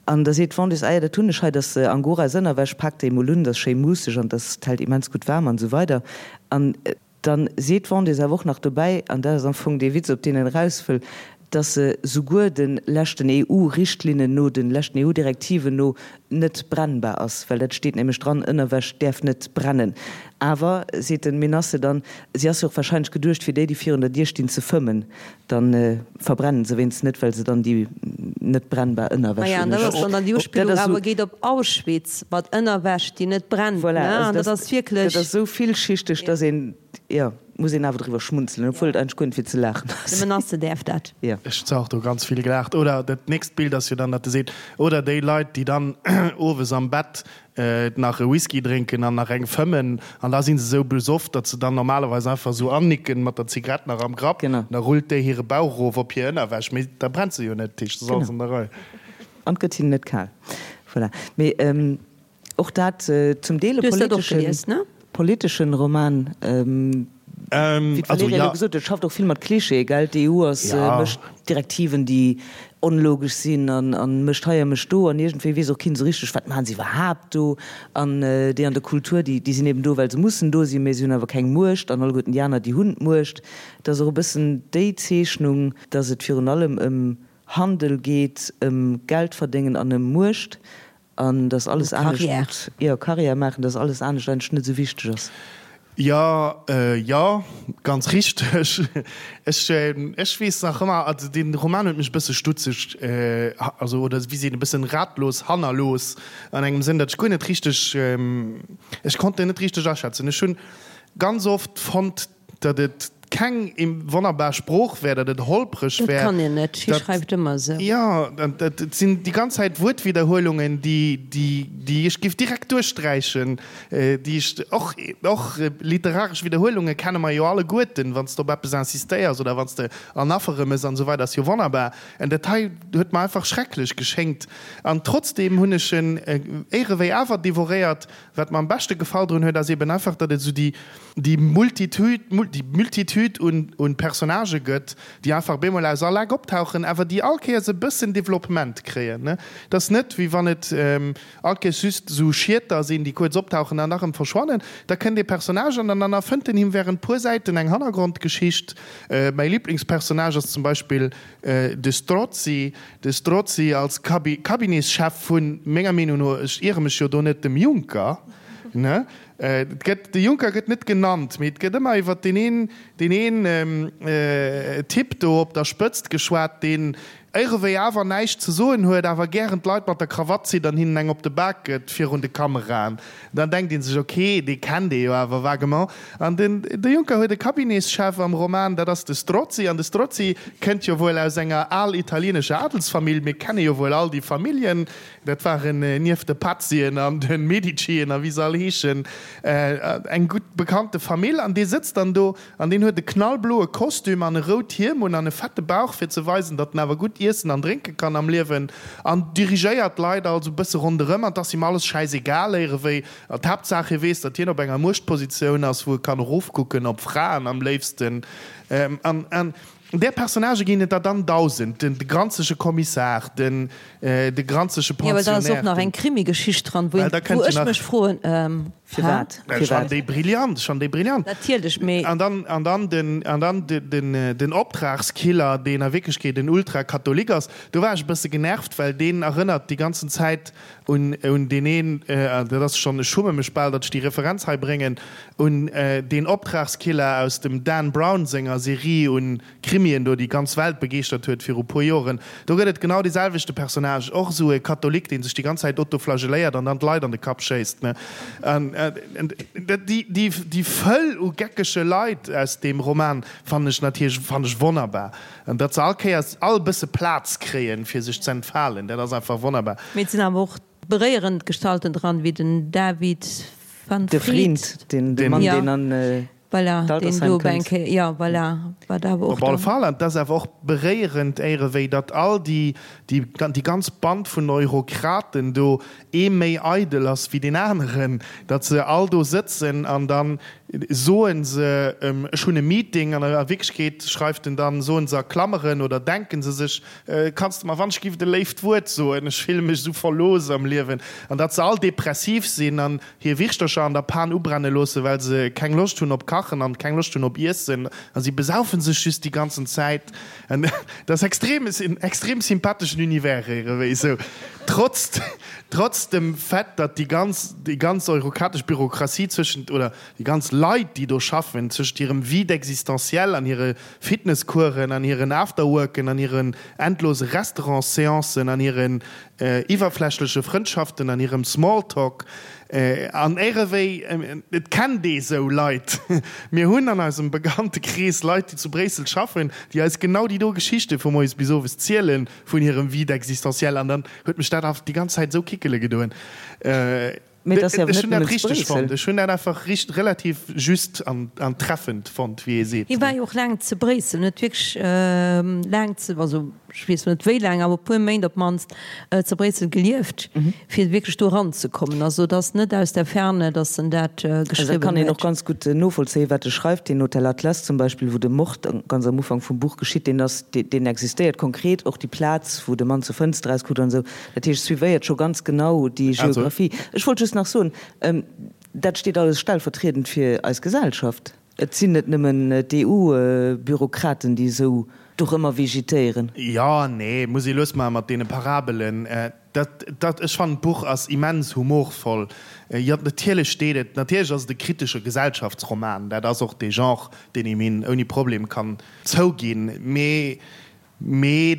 An da seet d'Vendeuse, ah jo, dat hunn ech hei, dat ass Angoras Ënnerwäsch, pak déi emol un, dat ass schéi muusseg an dat hält immens gutt waarm an esou weider. An Dann seet d'Vendeuse awer och nach dobäi, an dat ass am Fong dee Witz, op deen en eraus wëll, dass se souguer de leschten EU-Richtlinnen no, de leschten EU-Direktiven no net brennbar ass, well dat steet nämlech dran, Ënnerwäsch däerf net brennen. Awer, seet den Menasse dann, si ass jo och wahrscheinlech geduecht fir déi, déi virun der Dier stinn, ze fëmmen. Dann verbrennen se wéinstens net, well se dann déi net brennbar Ënnerwäsch hunn. Maja, an dat ass dann dann déi Uspillung awer geet op Auschwitz mat Ënnerwäsch, déi net brennt, ne? An dat ass wierklech. Dat ass esou villschichteg, dass een, jo. Muss een awer driwwer schmunzelen, obwuel et eigentlech guer net fir ze laachen ass. De Menasse däerf dat. Jo. Ech hu och do ganz vill gelaacht. Oder dat nächst Bild ass jo dann, datt e seet, oder déi Leit, déi dann owes am Bett nach e Whisky drénken an nach eng fëmmen an da si se esou besoff, datt se dann normalerweis einfach esou annicken mat der Zigarett nach am Grapp. Genau. Da rullt déi hire Bauch erof op hir Ënnerwäsch, mee da brennt se jo net, dat heescht, et ass alles an der Rei. An et gëtt hinnen net kal. Voilà. Mee. Och dat zum Deel e politeschen Roman, wéi d'Valerija elo gesot huet, schafft och vill mat Klischeeë, gell? D'EU ass, mécht Direktiven, déi onlogesch sinn an mécht hei a mécht do an iergendwéi weess och keen esou richteg, wat maachen se iwwerhaapt do? An déi an der Kultur, déi sinn eben do, well se mussen do sinn, mä se hunn awer keng Muecht an alleguerten déi aner, déi hunn d'Muecht. Et ass och e bëssen déi Zeechnung, datt et virun allem ëm Handel geet, ëm Geldverdéngen an ëm Muecht An dass alles anescht, jo, Carrière maachen, dass alles anescht eigentlech net esou wichteg ass. Jo, jo, ganz richteg. Ech, ech weess nach ëmmer, also dee Roman huet mech e bësse stutzeg, also oder wéi seet een, e bëssen ratlos hannerlooss an engem Sënn, datt ech guer net richteg, ech konnt en net richteg aschätzen. Ech hunn ganz oft fonnt, Datt et keng wonnerbar Sprooch wär, datt et holpreg wär. Dat kann een net, hie schreift ëmmer esou. Jo, et sinn déi ganz Zäit Wuertwidderhuelungen, déi ech géif direkt duerchsträichen, déi ech och, och literaresch Widderhuelunge kenne mer jo alleguerten, wann s de op eppes insistéiers oder wann s de Anapheren mëss an esou weider, ass jo wonnerbar. En dat hei huet mer einfach schrecklech geschéngt. An trotzdeem hunn ech en éierewéi awer devoréiert. Wat mer am beschte gefall drun huet, ass eben einfach, datt et esou déi, déi Multitude, déi Multitude un, un Personnagë gëtt, déi einfach bemol aus all Eck optauchen, awer déi all Kéiers e bëssen Developpement kréien, ne. Et ass net, wéi wann et all Kéiers just esou Schieter sinn, déi kuerz optauchen an da rëm verschwannen. Da kënnt ee Personnage an dann erfënnt en him während puer Säiten eng Hannergrondgeschicht. Mäi Liblingspersonnage ass zum Beispill de Strozzi, de Strozzi als Cabinetschef vun, menger Meenung no, ech iere mech jo do net, dem Juncker, ne? Et gëtt, de Juncker gëtt net genannt, mee et gëtt ëmmer iwwer deen een, deen een Typ do op der Spëtzt geschwat, deen éirewéi awer näischt ze soen huet, awer gären d'Leit mat der Krawatt zitt an hinnen eng op de Bak gëtt virun de Kameraen. Dann denkt ee sech, ok, dee kennt ee jo awer vaguement. An den, de Juncker huet e Cabinetschef am Roman, dat ass de Strozzi. An de Strozzi kënnt jo wuel aus enger al italienescher Adelsfamill. Mir kenne jo wuel all déi Familljen. Dat waren nieft de Pazzien an de Medicien a wéi se all heeschen, eng gutt bekannte Famill. An dee sëtzt dann do an deen huet e knallbloe Kostüm an e rout Hiem un an e fette Bauch, fir ze weisen, datt en awer gutt iessen an drénke kann am Liewen. An dirigéiert d'Leit also e bësse ronderëm. An 't ass him alles schäisegal éierewéi. An d'Haaptsaach, hie weess, datt hien op enger Muechtpositioun ass, wou e kann erofkucken op Fraen am léifsten. An Där Personnagë ginn et der dann 1.000, den granzege Kommissar, den de granzege Jo, well da ass och Pensionnaire, nach den. eng Krimigeschicht dran, wou Well da een, kënnt wou jo ech nach. mech froen, ähm, Firwat? Ech fannen Firwat? déi brillant, ech fannen déi brillant. Natierlech, mee. An dann, an dann den, an dann de, den, den Optragskiller, deen a Wierklechkeet en Ultrakatholik ass. Do war ech e bësse genervt, well deen erënnert déi ganzen Zäit un, un deen een, dat ass schonn, ech schumme mech bal, datt ech déi Referenz hei bréngen, un deen Optragskiller aus dem Dan Brown senger Serie un Krimien do, déi d'ganz Welt begeeschtert huet viru puer Joren. Do gëtt et genau dee selwechte Personnage, och esou e Katholik, dee sech déi ganz Zäit autoflagelléiert an dann d'Leit an de Kapp schéisst, ne. An déi, déi, déi Fëll u geckege Leit aus deem Roman fannen ech natierlech, fannen ech wonnerbar. An datt se all Kéiers all e bësse Plaz kréien, fir sech z'entfalen, dat ass einfach wonnerbar. Mee et sinn awer och beréierend Gestalten dran, wéi den David van De Vriend, Vriend, de Mann, deen an voilà, deen d'Altersheim do op eng kënnt. Kéier, jo, voilà, wat awer och Op alle dann. Fall. An et ass awer och beréierend, éierewéi datt all déi, déi, déi ganz Band vun Eurokraten do ee méi eidel ass wéi deen aneren, datt se all do sëtzen an dann soen se, ech hunn e Meeting, an a Wierklechkeet schreift en dann, soen se a Klammeren oder denken se sech, kanns de mer wann ech giff e léift Wuert soen, ech fille mech esou verlooss am Liewen, an datt se all depressiv sinn an hir Wirschtercher an der Pan ubrenne loossen, well se keng Loscht hunn op Kachen an keng Loscht hunn op Iessen a si besaufen sech just déi ganzen Zäit. An dat ass extrem, en extrem sympatheschen Univers ierewéi esou, trotz, trotz dem Fait, datt déi ganz, déi ganz eurokratesch Bürokratie zwëschent, oder déi ganz. Leit, déi do schaffen, tëscht hirem Vide existentiel an hire Fitnesscoursen an hiren Afterworken an hiren endlose Restaurants-Seancen an hiren iwwerflächleche Frëndschaften an hirem Smalltalk. An éirewéi, et kennt ee sou Leit. Mir hunn an eisem Bekanntekrees Leit, déi zu Bréissel schaffen, déi eis genau déi do Geschichte vu moies bis owes ziele vun hirem Vide existentiel. An dann huet mech dat einfach déi ganz Zäit esou kickele gedoen. Mee et ass jo awer Ech net hunn dat nëmmen zu richteg Bréissel. fonnt. Ech hunn dat einfach richt relativ just an an treffend fonnt, wéi ee seet. Hie war jo och laang zu Bréissel, en huet wierklech laang zu, also ech weess lo net wéi laang, awer e puer Méint op d'mannst zu Bréissel gelieft, fir wierklech do eranzekommen. Also et ass net aus der Ferne, datt en dat Also dat geschriwwen kann een och huet. ganz gutt novollzéien, wat e schreift. Deen Hotel Atlas zum Beispill, wou de Mord ganz am Ufank vum Buch geschitt, deen ass, deen existéiert konkret, och déi Plaz, wou de Mann zur Fënster erauskuckt an esou. Dat heescht, suivéiert scho ganz genau déi Geographie. Ech wollt just nach soen, dat steet alles stellvertriedend fir eis Gesellschaft. Et sinn net nëmmen d'EU-Bürokraten, déi esou dorëmmer vegetéieren. Jo, nee, muss ee lues maache mat deene Parabelen. Dat, dat, ech fannen, d'Buch ass immens humorvoll. Jo, natierlech steet et, natierlech ass et e kritesche Gesellschaftsroman, dat ass och dee Genre, deen een him ouni Problem kann zouginn, mee Mee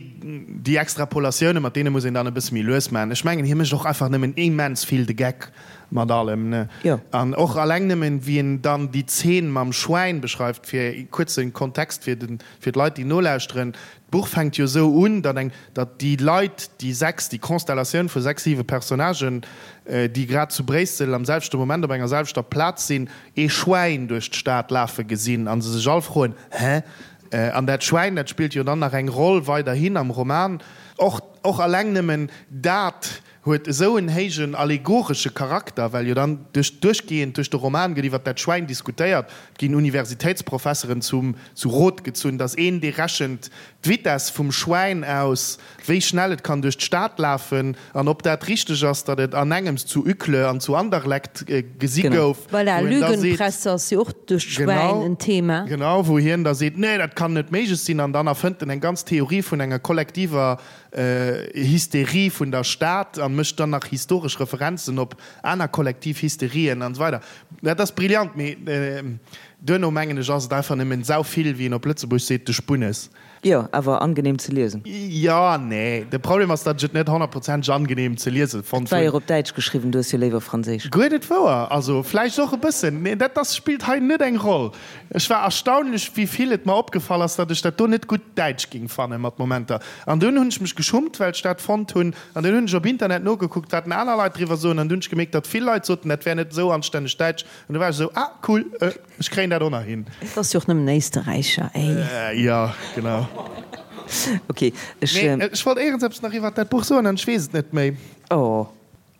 déi Extrapolatioune mat deene muss een dann e bësse méi lues maachen. Ech mengen, hie mécht och einfach nëmmen immens vill de Geck mat allem, ne? Jo. An och alleng nëmmen, wéi en dann déi Zeen mam Schwäin beschreift, fir e kuerze Kontext fir de, fir d'Leit, déi nolauschteren, D'Buch fänkt jo esou un, datt eng, datt déi Leit, déi 6, déi Constellatioun vu 6, 7 Personnagen, déi grad zu Bréissel am selwechte Moment op enger selwechter Plaz sinn, ee Schwäin duerch d'Stad lafe gesinn a se sech all froen, Hä? An dat Schwäin, dat spillt jo dann nach eng Roll weiderhin am Roman. Och, och alleng nëmmen dat huet esou en héijen allegoresche Charakter, well jo dann duerch, duerchgehend duerch de Roman gëtt iwwer dat Schwäin diskutéiert, et ginn Universitéitsprofesseren zum, zu Rot gezunn, datt een, dee rechent d'Vitess vum Schwäin aus, wéi schnell et kann duerch d'Stad lafen an ob dat richteg ass, datt et an engems zu Uccle an zu Anderlecht gesi gouf, Voilà, wou en da seet, Lügenpresse ass jo och duerch d'Schwäin en Thema. Genau, wou hien da seet, nee, dat kann net méiglech sinn an dann erfënnt en eng ganz Theorie vun enger kollektiver Hysterie vun der Stad a mécht dann nach historesch Referenzen op aner kollektiv Hysterien an esou weider. Dat ass brillant, mee duerno mengen ech ass et einfach nëmmen sauvill, wéi een op Lëtzebuerg seet, de Spunnes. Jo, awer angenehm ze liesen. Jo, nee, de Problem ass, datt ech et net honnertprozenteg angenehm ze liese fonnt Et war hunn. jo och op Däitsch geschriwwen, du hues jo léiwer Franséisch. Guer net wouer, also vläicht och e bëssen, mee dat ass, spillt hei net eng Roll. Ech war erstaunlech, wéi vill et mer opgefall ass, datt ech dat do net gutt Däitsch ging fanne mat Momenter. An dunn hunn ech mech geschummt, well ech dat fonnt hunn. An dunn hunn ech op Internet nogekuckt, wat denn aner Leit driwwer soen, an dunn hunn ech gemierkt, datt vill Leit soten, dat wär net esou anstänneg Däitsch. An du war ech esou, ah cool, Ech kréien dat och nach hin. Et ass jo och nëmmen Éisterräicher, ey. Jo, genau. Ok, ech. Mee ech wollt éierens eppes nach iwwert dat Buch soen an ech weess et net méi. Oh,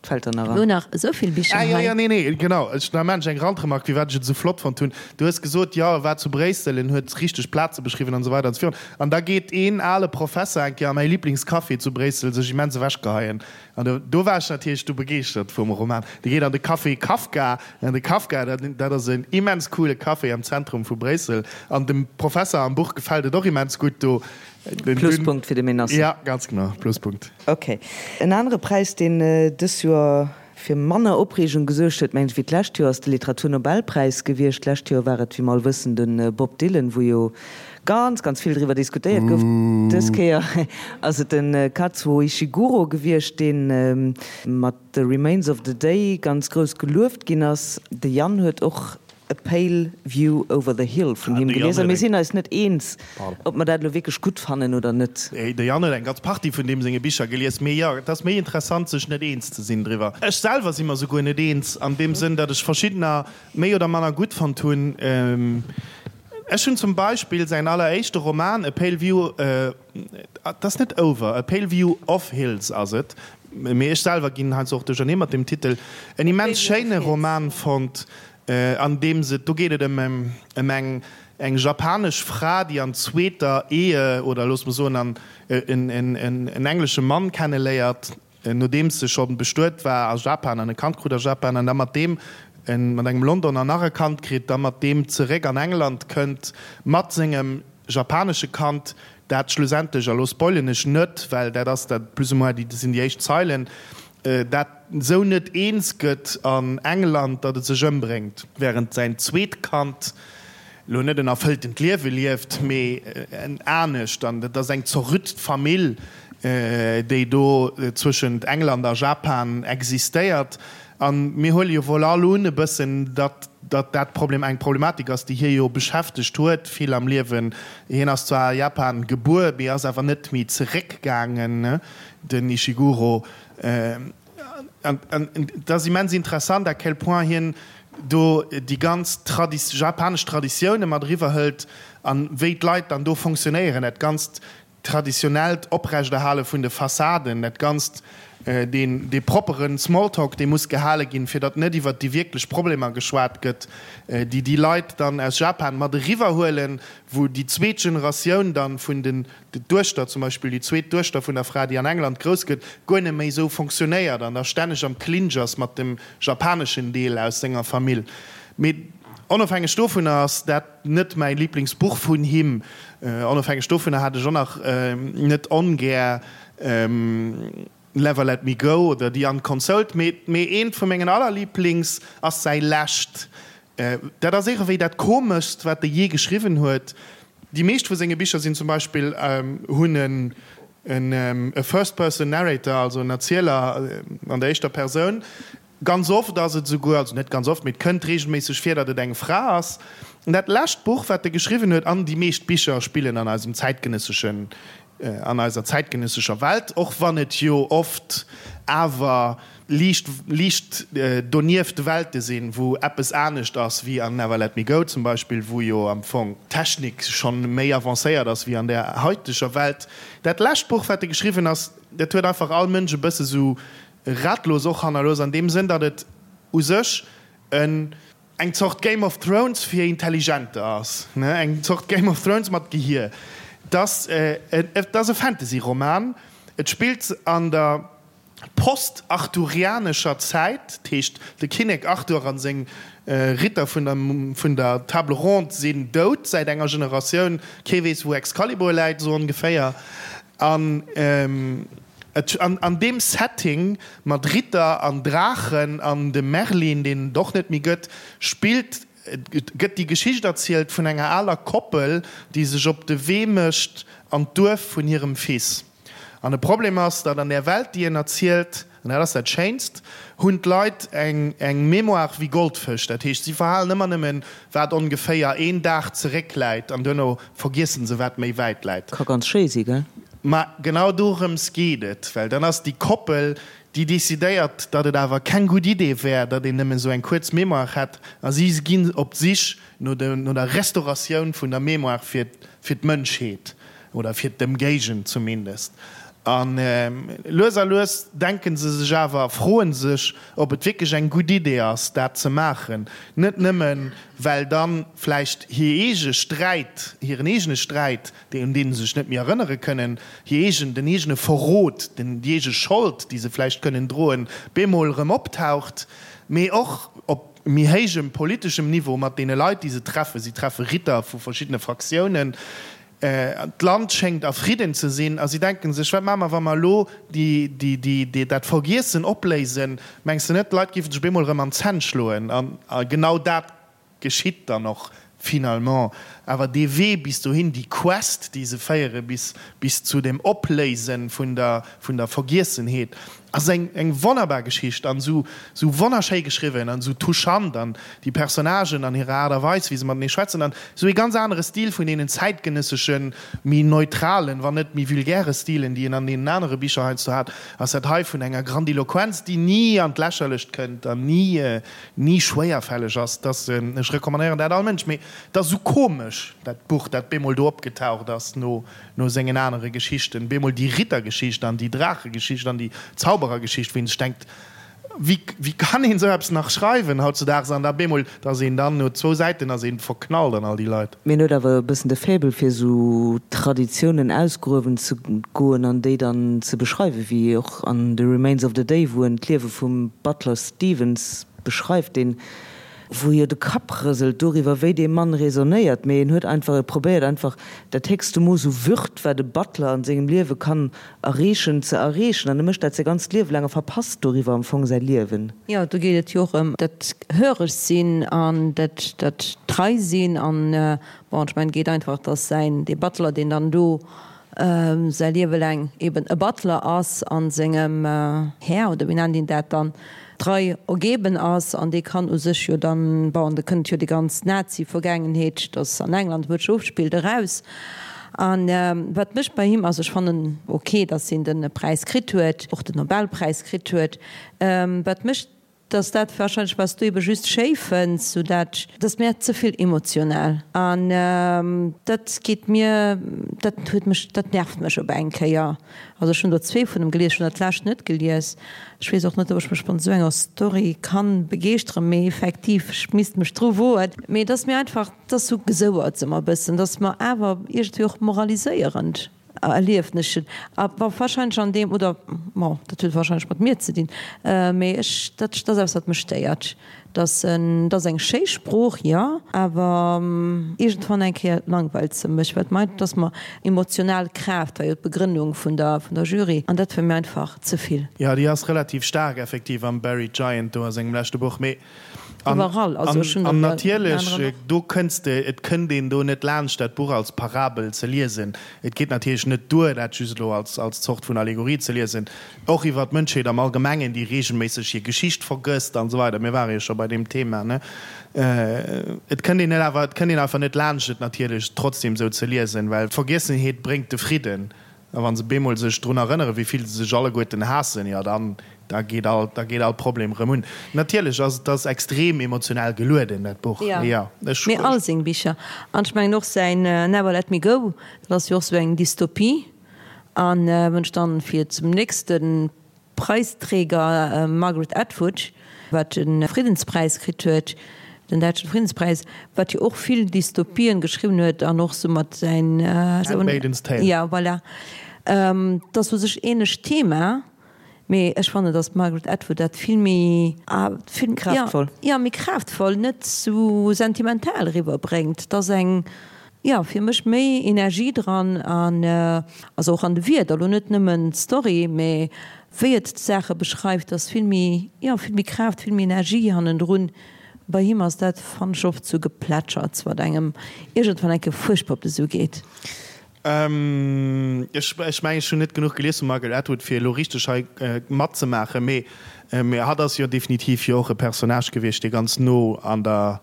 et fält der nach Mir an. hunn nach esou vill Bicher Ah, jo, hei. jo, nee, nee, genau. Ech, da maan ech eng Randremark, firwat ech et esou flott fonnt hunn. Du hues gesot, jo, e war zu Bréissel, en huet richteg Plaze beschriwwen an esou weider an esou virun. An da geet een ale Professer eng Kéier a mäi Liblingscafé zu Bréissel sech immens ewechgeheien. An do, do war ech natierlech du begeeschtert vum Roman. Dee geet an de Café Kafka. An de Kafka, dat, dat ass en immens coole Café am Zentrum vu Bréissel. An dem Professer am Buch gefält et och immens gutt do. Den, Pluspunkt fir de Menasse. Ja, ganz genau, Pluspunkt. Ok. En anere Präis, deen dës Joer fir manner Opreegung gesuergt huet, mengen ech, wéi d'lescht Joer, ass de Literaturnobelpräis gewiescht. D'lescht Joer war et, wéi mer all wëssen, de Bob Dylan, wou jo ganz, ganz vill driwwer diskutéiert gouf. Dës Kéier ass et de Kazuo Ishiguro gewiescht, dee mat The Remains of the Day ganz grouss gelueft ginn ass. De Yann huet och A Pale View Over the Hill vun him gelies a mir sinn eis net eens, ob mer dat elo wierklech gutt fannen oder net. De Yann huet eng ganz Partie vun deem senge Bicher gelies, mee jo, et ass méi interessant, sech net eens ze sinn driwwer. Ech selwer si mer souguer net eens, an deem Sënn, datt ech verschiddener méi oder manner gutt fonnt hunn. Ech hunn zum Beispill säin alleréischte Roman A Pale View, et ass net Over, A Pale View of Hills ass et, mee ech selwer ginn heiansdo och duerchernee mat deem Titel, en immens schéine Roman fonnt, an deem se, do geet et ëm ëm eng eng japanesch Fra, déi an zweeter Ehe, oder loosse mer soen an en en englesche Mann kenneléiert, nodeems se scho bestuet war a Japan an e Kand krut a Japan an da mat deem, mat engem Londoner nach e Kand kritt, da mat deem zeréck an England kënnt mat sengem japanesche Kand, dat schlussendlech, a lo spoilen ech net, well dat ass dat plus ou moins déi, dat sinn déi éischt Zeilen. dat esou net eens gëtt an England, datt et sech ëmbréngt, wärend säin zweet Kand elo net en erfëlltent Liewe lieft, mee en anescht. An et ass eng zerrütt Famill, déi do zwëschent England a Japan existéiert. A mir huele jo wuel all un e bëssen, datt datt dat Problem eng Problematik ass, déi hie jo beschäftegt huet vill am Liewen. Hien ass zwar a Japan gebuer, mee ass awer net méi zeréckgaangen, den Ishiguro. An et ass immens interessant, à quel point hien do déi ganz japanesch Traditioune mat eriwwer hëlt an wéi d'Leit dann do fonctionnéieren, dat ganzt traditionellt Oprechterhale vun de Fassaden, dat Ganzt, deen, dee propperen Smalltalk, dee muss gehale ginn, fir datt net iwwert déi wierklech Problemer geschwat gëtt, déi déi Leit dann aus Japan mat eriwwerhuelen, wou déi zweet Generatioun dann vun den, d'Duechter zum Beispill, déi zweet Duechter vun der Fra, déi an England grouss gëtt, guer net méi esou fonctionnéiert an da stänneg am Clinch ass mat dem japaneschen Deel aus senger Famill. Mee onofhängeg dovunner ass dat. Net mäi Liblingsbuch vun him. Onofhängeg dovunner hat ech och nach net ongär Never Let Me Go oder The Unconsoled, mee eent vu mengen allerliblings ass säi lescht. Dat ass iergendwéi dat komeschst, wat e jee geschriwwen huet. Déi meescht vu senge Bicher sinn zum Beispill, hunn en e First Person Narrator, also en Erzieler an der éischter Persoun. Ganz oft ass et esouguer, also net ganz oft, mee et kënnt reegelméisseg vir, datt et eng Fra ass. An dat lescht Buch, wat e geschriwwen huet, an déi meescht Bicher spillen an eisem zäitgenësseschen, an eiser zäitgenëssescher Welt, och wann et jo oft awer liicht, liicht donieft Welte sinn, wou eppes anescht ass wéi an Never Let Me Go zum Beispill, wou jo am Fong d'Technik schonn méi avancéiert ass wéi an där haiteger Welt. Dat lescht Buch, wat e geschriwwen ass, dat huet einfach all Mënsch e bësse sou Ratlos och hannerlooss an deem Sënn, datt et u sech en eng Zort Game of Thrones fir Intelligenter ass, ne, eng Zort Game of Thrones mat Gehier. Et ass, et ass e Fantasy-Roman, et spillt an der post-arthurianescher Zäit, dat heescht de Kinnek Arthur a seng Ritter vun der vun der Table Ronde sinn dout säit enger Generatioun, kee weess wou Excalibur läit, esou ongeféier. An an deem Setting mat Ritter an Draachen an dem Merlin, deen et och net méi gëtt, spillt, gëtt déi Geschicht erzielt vun enger aler Koppel, déi sech op de Wee mécht an d'Duerf vun hirem Fils. An de Problem ass, datt an där Welt, déi en erzielt, An dat ass dat Schéinst, hunn d'Leit eng eng Mémoire wéi Goldfësch. Dat heescht, si verhalen ëmmer nëmmen, wat ongeféier een Dag zeréckläit, an duerno vergiessen se, wat méi wäit läit. Ka ganz schéi si, gell? Ma genau dorëms geet et, well dann ass déi Koppel, déi decidéiert, datt et awer keng gutt Idee wär, datt een nëmmen esou eng kuerz Mémoire hätt, a si ginn op d'Sich no der Restauratioun vun der Mémoire fir d'Mënschheet. Oder fir d'Ëmgéigend zumindest. A lues a lues denke se sech awer, froe sech, ob et wierklech eng gutt Idee ass, dat ze maachen. Net nëmmen, well dann vläicht hir eege Sträit, hiren eegene Sträit, un dee se sech net méi erënnere kënnen, hir eegen, den eegene Verrot, den, déi eege Schold, déi se vläicht kënnen droen, bemol erëm optaucht, mee och op méi héijem politeschem Niveau mat deene Leit, déi se treffen. Si treffe Ritter vu verschiddene Fraktiounen. D'Land schéngt a Fridden ze sinn a si denken sech, Wat maache mer, wa mer elo dat Vergiessen opléisen? Mengs de net, d'Leit géifen sech op eemol erëm an d'Zänn schloen? A genau dat geschitt dann och finalement. Awer dee Wee bis dohin, déi Quest, déi se féiere bis zu dem Opléise vun der Vergiessenheet, Ass eng eng wonnerbar Geschicht an sou sou wonnerschéi geschriwwen an sou touchant an déi Personnagen an hirer Aart a Weis wéi se matenee schwätzen an sou ee ganz anere Stil vun deenen zäitgenësseschen méi neutralen wann net méi vulgäre Stilen déi een an deenen anere Bicher heiansdo hat ass dat hei vun enger Grandiloquenz déi ni an d'Lächerlecht kënnt an ni ni schwéierfälleg ass dass ech recommandéieren dat all Mënsch mee et ass sou komesch dat Buch dat bemol do opgetaucht ass no No sengen anere Geschichten, bemol déi Rittergeschicht an déi Draachegeschicht an déi Zauberergeschicht, wou een sech denkt, wéi, wéi kann een esou eppes nach schreiwen hautzudaags? An da bemol, da ass een dann no zwou Säiten ass een verknallt an all déi Leit. Mee en huet awer e bëssen de Faible fir esou Traditiounen ausgruewen ze goen an déi dann ze beschreiwen, wéi och an The Remains of the Day, wou en d'Liewe vum Butler Stevens beschreift, deen. Wou jo de Kapp rëselt doriwwer, wéi dee Mann raisonnéiert, mee en huet einfach, e probéiert einfach dat héchste Mooss u Würd, wat e Butler an sengem Liewe kann erreechen, ze erreechen. An e mécht dat säi ganzt Liewe laang a verpasst doriwwer am Fong säi Liewen. Jo, do geet et jo och ëm dat höreg sinn an dat, dat trei sinn an, bon, ech mengen, et geet einfach, dass säin, dee Butler, deen dann do säi Liewe laang eben e Butler ass a sengem Här, oder wéi nennt een dat dann, trei ergeben ass an dee kann u sech jo dann, bon, da kënnt jo déi ganz Nazi-Vergaangenheet, dass an England wou et sech ofspillt, eraus. A wat mech bei him, also ech fannen ok, dass hien de Präis kritt huet, och den Nobelpräis kritt huet, wat mech, Dass dat wahrscheinlech wat s du ebe just schéi fënns, sou dat. Dat ass mir ze vill emotional an dat geet mir, dat huet mech, dat nervt mech op eng Kéier. Also ech hunn der zwee vun em gelies, ech hunn dat lescht net gelies. Ech weess och net, ob ech mech mat esou enger Story kann begeeschteren, mee effektiv, ech misst mech dru woen. Mee et ass mir einfach, et ass sou gesouerts ëmmer e bëssen, et ass mer awer iergendwéi och moraliséierend. Erliefneschen. A wa wahrscheinlech an deem, oder bon, dat huet wahrscheinlech mat mir ze dinn, mee ech, dat ass eppes, wat mech stéiert, dass en, dat ass eng schéi Sprooch, jo, awer iergendwann eng Kéier langweilt se mech, well et dass mer emotional Kraaft war jo d'Begrënnung vun der, vun der Jury, an dat war mir einfach ze vill. Jo, déi ass relativ staark effektiv am Buried Giant do a sengem leschte Buch, mee An, Iwwerall, also ech hunn an natierlech, do kënns de, et kënnt een do net laanscht dat Buch als Parabel ze liesen. Et geet natierlech net duer, dat just elo als, als Zort vun Allegorie ze liesen, och iwwer d'Mënschheet am Allgemengen, déi reegelméisseg hir Geschicht vergësst an esou weider. Mir ware jo scho bei deem Thema, ne? Et kënnt een net awer, et kënnt een einfach net laanscht, et natierlech trotzdem esou ze liesen, well d'Vergiessenheet bréngt de Fridden. A wa se bemol sech drun erënneren, wéi vill se sech alleguerten haassen, jo dann, da geet all, da geet all Problem erëm un. Natierlech ass et ass extrem emotional gelueden, dat Buch. Jo, jo, ech. Mee all seng Bicher. An ech mengen och säin Never Let Me Go, dat ass jo och sou eng Dystopie. An wann ech dann fir zum nächste Preisträger Margaret Atwood, wat de Friddenspräis kritt huet, den däitschen Friddenspräis, wat jo och vill Dystopien geschriwwen huet an och sou mat säin. Handmaidens Tale. Ja, voilà. Dat ass u sech ähnlecht Thema, mee ech fannen, datt d'Margaret Atwood dat vill méi, vill, Kraaftvoll. Ja, méi kraaftvoll, net sou sentimental eriwwerbréngt. Et ass eng. Jo, fir mech méi Energie dran an also och an de Wierder, elo net nëmmen d'Story, mee wéi et d'Saache beschreift ass vill méi, jo vill méi Kraaft, vill méi Energie hannendrun. Bei him ass dat, fannen ech, oft sou Geplätscherts, wat engem iergendwann eng Kéier fuerchtbar op de Su geet. Ech mengen, ech hunn net genuch gelies vum Margaret Atwood, fir elo richteg hei matzemaachen, mee hatt ass jo definitiv jo och e Personnage gewiescht, dee ganz no an der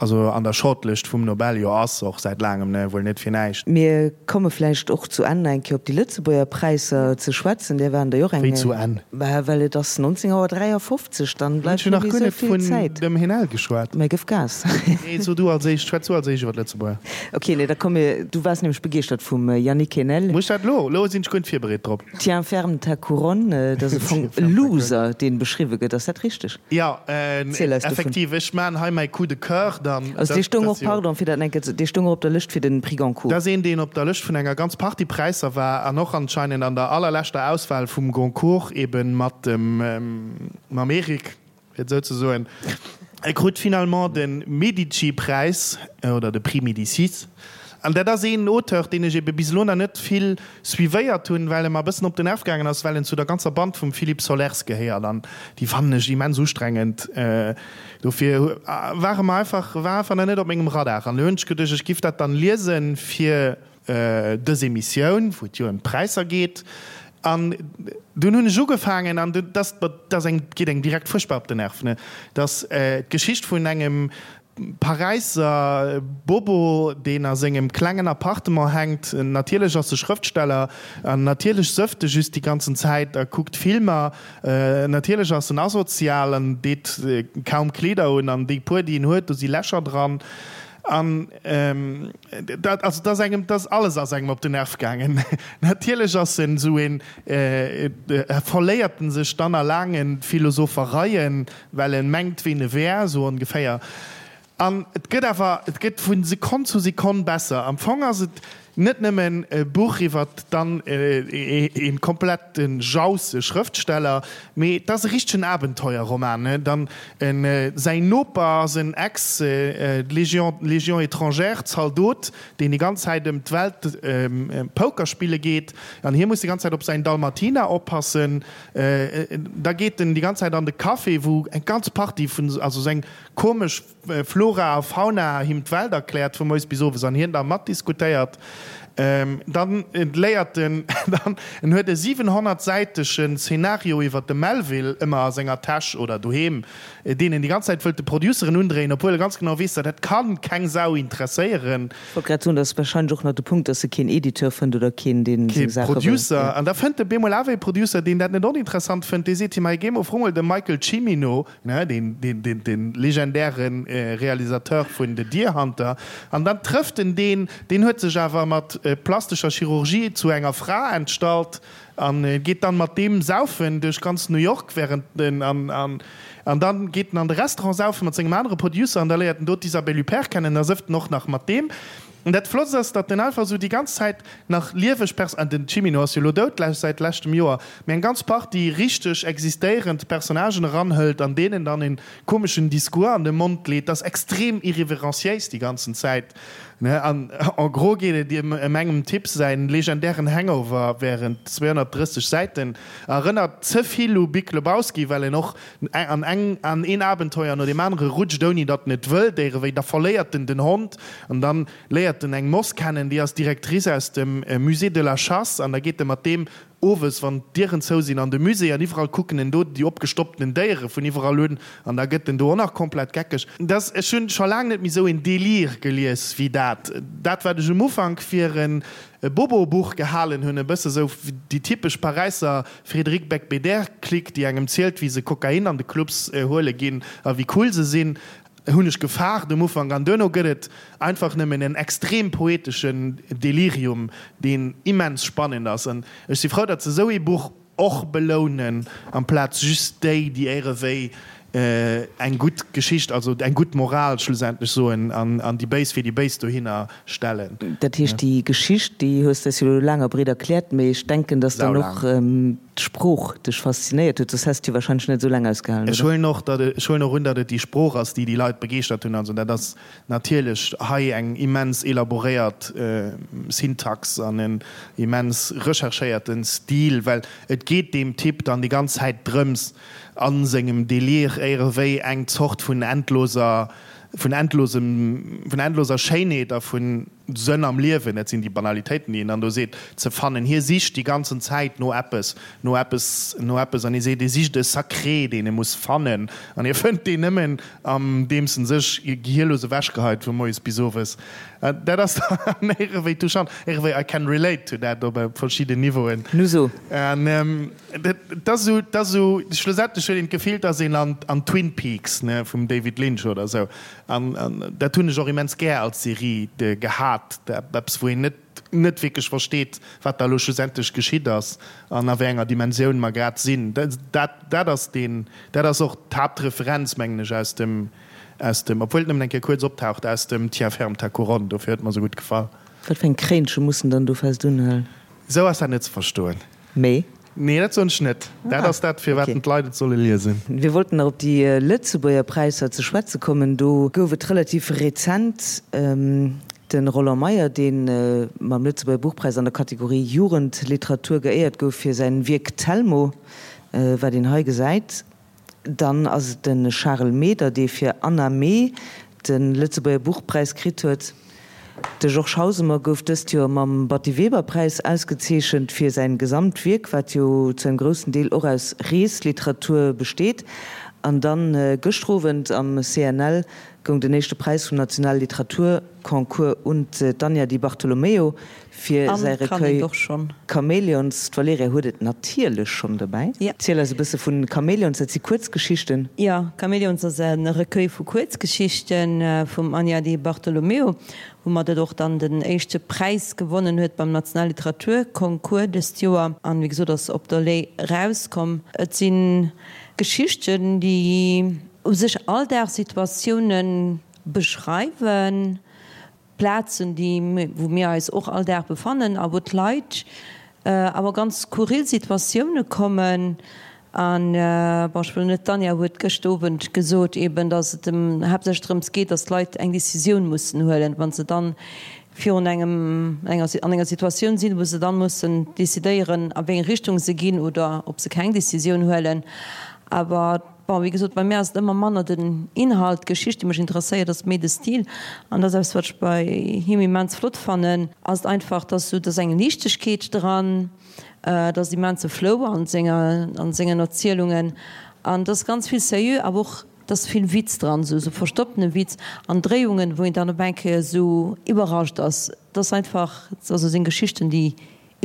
Also an der Shortlist vum Nobel jo ass, och säit laangem, ne, wuel net fir näischt. Mir komme vläicht och zu Enn eng Kéier op déi Lëtzebuerger Präisser ze schwätzen. Där waren der jo och eng. Wéi zu Enn? Bah, well et ass 19 Auer 53, dann bleift net méi esou vill Zäit. Ech hunn nach guer net vun dem Henel geschwat. Mä gëff Gas. Nee, so du als éischt, schwätz du als éischt iwwer d'Lëtzebuerger. Ok, nee, da komm mir, du waars nämlech begeeschtert vum Yannick Enel. Muss ech dat elo? Elo sinn ech guer net virbereet drop. Tiens ferme ta couronne, dat ass e Fong e Loser, deen beschriwwe gëtt. Ass dat richteg? Jo, effektiv, ech maan hei mäi Coup de coeur dann. Also dee stoung och, pardon fir dat enke, dee stoung och op der Lëscht fir den Prix Goncourt. Dat ass een, deen op der Lëscht vun enger ganz Partie Präisser war an och anscheinend an der allerleschter Auswahl vum Goncourt eben mat dem, mam Eric. Fir et esou ze soen, e krut finalement de Medici-Präis, oder de Prix Médicis. An dat ass een Auteur, deen ech ebe bis elo nach net vill suivéiert hunn, well e mer e bëssen op den Nerv gaangen ass, well en zu der ganzer Band vum Philippe Sollers gehéiert. An déi fannen ech immens ustrengend. Dofir war e mer einfach, war einfach nach net op mengem Radar. An elo hunn ech geduecht, ech giff dat dann liesen, fir dës Emissioun, wou et jo ëm d'Präisser geet, an dunn hunn ech ugefaangen, an dat ass eng, geet engem direkt fuerchtbar op den Nerv, ne, dass d'Geschicht vun engem Paräisser Bobo, deen a sengem klengen Appartement hänkt, natierlech ass e Schrëftsteller, an natierlech sëfft e just déi ganzen Zäit a kuckt Filmer, natierlech ass en asozial an deet kaum Kleeder un, an déi puer, déi en huet, do si Lächer dran. An dat, also dat ass engem, dat ass alles ass engem op den Nerv gaangen. Natierlech ass en esou een, verléiert en sech dann a laange Philosophereien, well en mengt, ween e wär, esou ongeféier. An et gëtt awer, et gëtt vu Sekonn zu Sekonn besser. Am Fong ass et. Net nëmmen e Buch iwwert dann ee komplette jausse Schrëftsteller, mee et ass e richtegen Abenteuerroman. Dann säin Noper ass en Ex-Légion, Légion étrangère, Zaldot, deen déi ganz Zäit ëm d'Welt Poker spille geet an hie muss déi ganz Zäit op säin Dalmatiner oppassen. Da geet en déi ganz Zäit an de Café, wou eng ganz Partie vun, also sou eng komesch, Flora a Fauna him d'Welt erkläert vu moies bis owes an hien da matdiskutéiert. Dann léiert en, dann en huet e 700 säitegen Szenario iwwer de Melville ëmmer a senger Täsch oder doheem, deen en déi ganz Zäit wëllt de Produceren undréien, obwuel e ganz genau weess, dat dat kann keng Sau interesséieren. Ech wollt grad soen, dat ass warscheinlech och nach de Punkt, dass e keen Editeur fënnt oder keen, deen seng Saache wëll. Kee Producer. An da fënnt e bemol awer ee Producer, deen dat net oninteressant fënnt, dee seet him, hei géi mol, fro mol de Michael Cimino, Deen legendäre Realisateur vun The Deer Hunter. An dann trëfft en deen, deen huet sech awer mat plastescher Chirurgie zu enger Fra entstallt an geet dann mat deem saufen duerch ganz New York während en an an dann geet en an de Restaurant saufen mat sengem anere Producer an da léiert en do d'Isabelle Huppert kennen an da sëfft en och nach mat deem. An dat Flottst ass, datt en einfach esou déi ganz Zäit nach lieweg Pers-, an den Cimino ass jo elo dout säit leschtem Joer, mee eng ganz Partie richteg existéierend Personnagen eranhëlt an deenen dann en komeschen Discours an de Mond leet. Dat ass extrem irreverenciéis déi ganzen Zäit, ne? An en gros geet et ëm engem Typ säin legendären Hangover während 230 Säiten. Erënnert ze vill u Big Lebowski, well en och An eng an een Abenteuer no deem anere rutscht, ouni datt en et wëllt, éirewéi. Da verléiert en den Hond an dann léiert en eng Moss kennen, déi ass Directrice aus dem Musée de la Chasse an da geet e mat deem owes, wann d'Dieren zou sinn, an de Musée an iwwerall kucken en do déi opgestoppten Déiere vun iwwerall un an da gëtt en do och nach komplett geckeg. Dass, ech hunn scho laang net méi esou een Délire gelies wéi dat. Dat, wat ech um Ufank fir e Bobo-Buch gehalen hunn, e bësse sou déi typesch Paräisser Frédéric Beigbeder-Clique, déi engem zielt, wéi se Kokain an de Clubs huele ginn a wéi cool se sinn, hunn ech gefaart um Ufank. An duerno gëtt et einfach nëmmen en extrem poeteschen Delirium, deen immens spannend ass. An ech si frou, datt se esou ee Buch och belounen, amplaz just déi, déi éirewéi eng gutt Geschicht, also eng gutt Moral schlussendlech soen an déi Béis fir déi Béis dohinner stellen. Dat heescht, déi Geschicht, déi hues de eis jo elo laang a breet erkläert, mee ech denken, dass dann och d'Sprooch dech faszinéiert huet, soss häss de jo wahrscheinlech net esou laang ausgehalen, oder? Ech huelen och, datt et, ech huelen och un, datt et déi Sprooch ass, déi déi Leit begeeschtert hunn. Also dat ass natierlech hei eng immens elaboréiert Syntax an en immens recherchéierten Stil, well et geet deem Typ dann déi ganz Zäit drëms, a sengem Délire éierewéi eng Zort vun endloser, vun endlosem, vun endloser Schéinheet a vu Sënn am Liewen, dat sinn déi Banalitéiten, déi en dann do seet, ze fannen. Hie sicht déi ganzen Zäit no eppes, no eppes, no eppes an hie seet, hie sicht e Sacré, deen e muss fannen an hie fënnt deen nëmmen, andeems en sech gehierlos ewechgeheit vu moies bis owes. Dat ass dann éierewéi touchant, éierewéi I can relate to that op verschidden Niveauen. Nu so. An Dat ass esou, dat ass esou, schlussendlech huet een d'Gefill, dass een an, an Twin Peaks, ne, vum David Lynch oder esou, an, an dat hunn ech och immens gär als Serie gehat, eppes wou een net, net wierklech versteet, wat da elo schlussendlech geschitt ass an a wéi enger Dimensioun mer grad sinn. Dat, dat ass deen, dat ass och d'Haaptreferenz, mengen ech, aus dem, aus dem, obwuel et nëmmen eng Kéier kuerz optaucht, aus dem Tiens ferme ta couronne, dofir huet et mer esou gutt gefall. Wat fir eng Kréinche muss en dann do fest unhalen? Esou ass dat net ze verstoen. Mee? Nee, dat soen ech net. Dat ass dat, firwat d'Leit et solle liesen. Wir wollten nach op déi Lëtzebuerger Präisser ze schwätze kommen. Do gouf et relativ rezent de Roland Meyer, dee mam Lëtzebuerger Buchpräis an der Kategorie Jugendliteratur geéiert gouf fir säin Wierk Telmo, wat een hei gesäit. Dann ass et de Charel Meder, dee fir Anna Mee de Lëtzebuerger Buchpräis kritt huet. De Georges Hausemer gouf dëst Joer mam Batty Weber Präis ausgezeechent fir säin Gesamtwierk, wat jo zu engem groussen Deel och aus Reesliteratur besteet. An dann gëschter Owend am CNL goung den éischte Präis vum Nationale Literaturconcours un d'Anja Di Bartolomeo Fir säi Recueil Chamäleons. D'Valerija huet et natierlech schonn dobäi. Ziel eis e bësse vun Chamäleons, dat si Kuerzgeschichten. Jo, Chamäleons ass e Recueil vu Kuerzgeschichte vum Anja Di Bartolomeo, woumat et och dann den éischte Präis gewonnen huet beim Nationale Literaturconcours dëst Joer. An wéi gesot ass op der Lay erauskomm. Et si Geschichten, déi u sech Alldagssituatioune beschreiwen. Plazen, déi, wou mir eis och all Dag befannen a wou d'Leit awer ganz skurril Situatioune kommen. An, bon, ech wëll net, d'Anja huet gëscht Owend gesot eben, datt et em haaptsächlech drëms geet, datt d'Leit eng Décisioun mussen huelen, wa se dann virun engem, enger, an enger Situatioun sinn, wou se dann mussen décidéieren, a wéi eng Richtung se ginn oder ob se keng Décisioun huelen. Awer, bon, wéi gesot, bei mär ass et ëmmer manner den Inhalt, d'Geschicht, déi mech interesséiert, ass méi de Stil. An dat ass eppes, wat ech bei him immens flott fannen, ass et einfach, dass esou, dass eng Liichtegkeet dran, Et ass immense Flow an senger, an sengen Erzielungen an et ass ganz vill Sérieux, awer och et ass vill Witz dran, esou esou verstopptene Witz an Dréiungen, wou een dann op eng Kéier esou iwwerrascht ass. Et ass einfach, also seng Geschichten, déi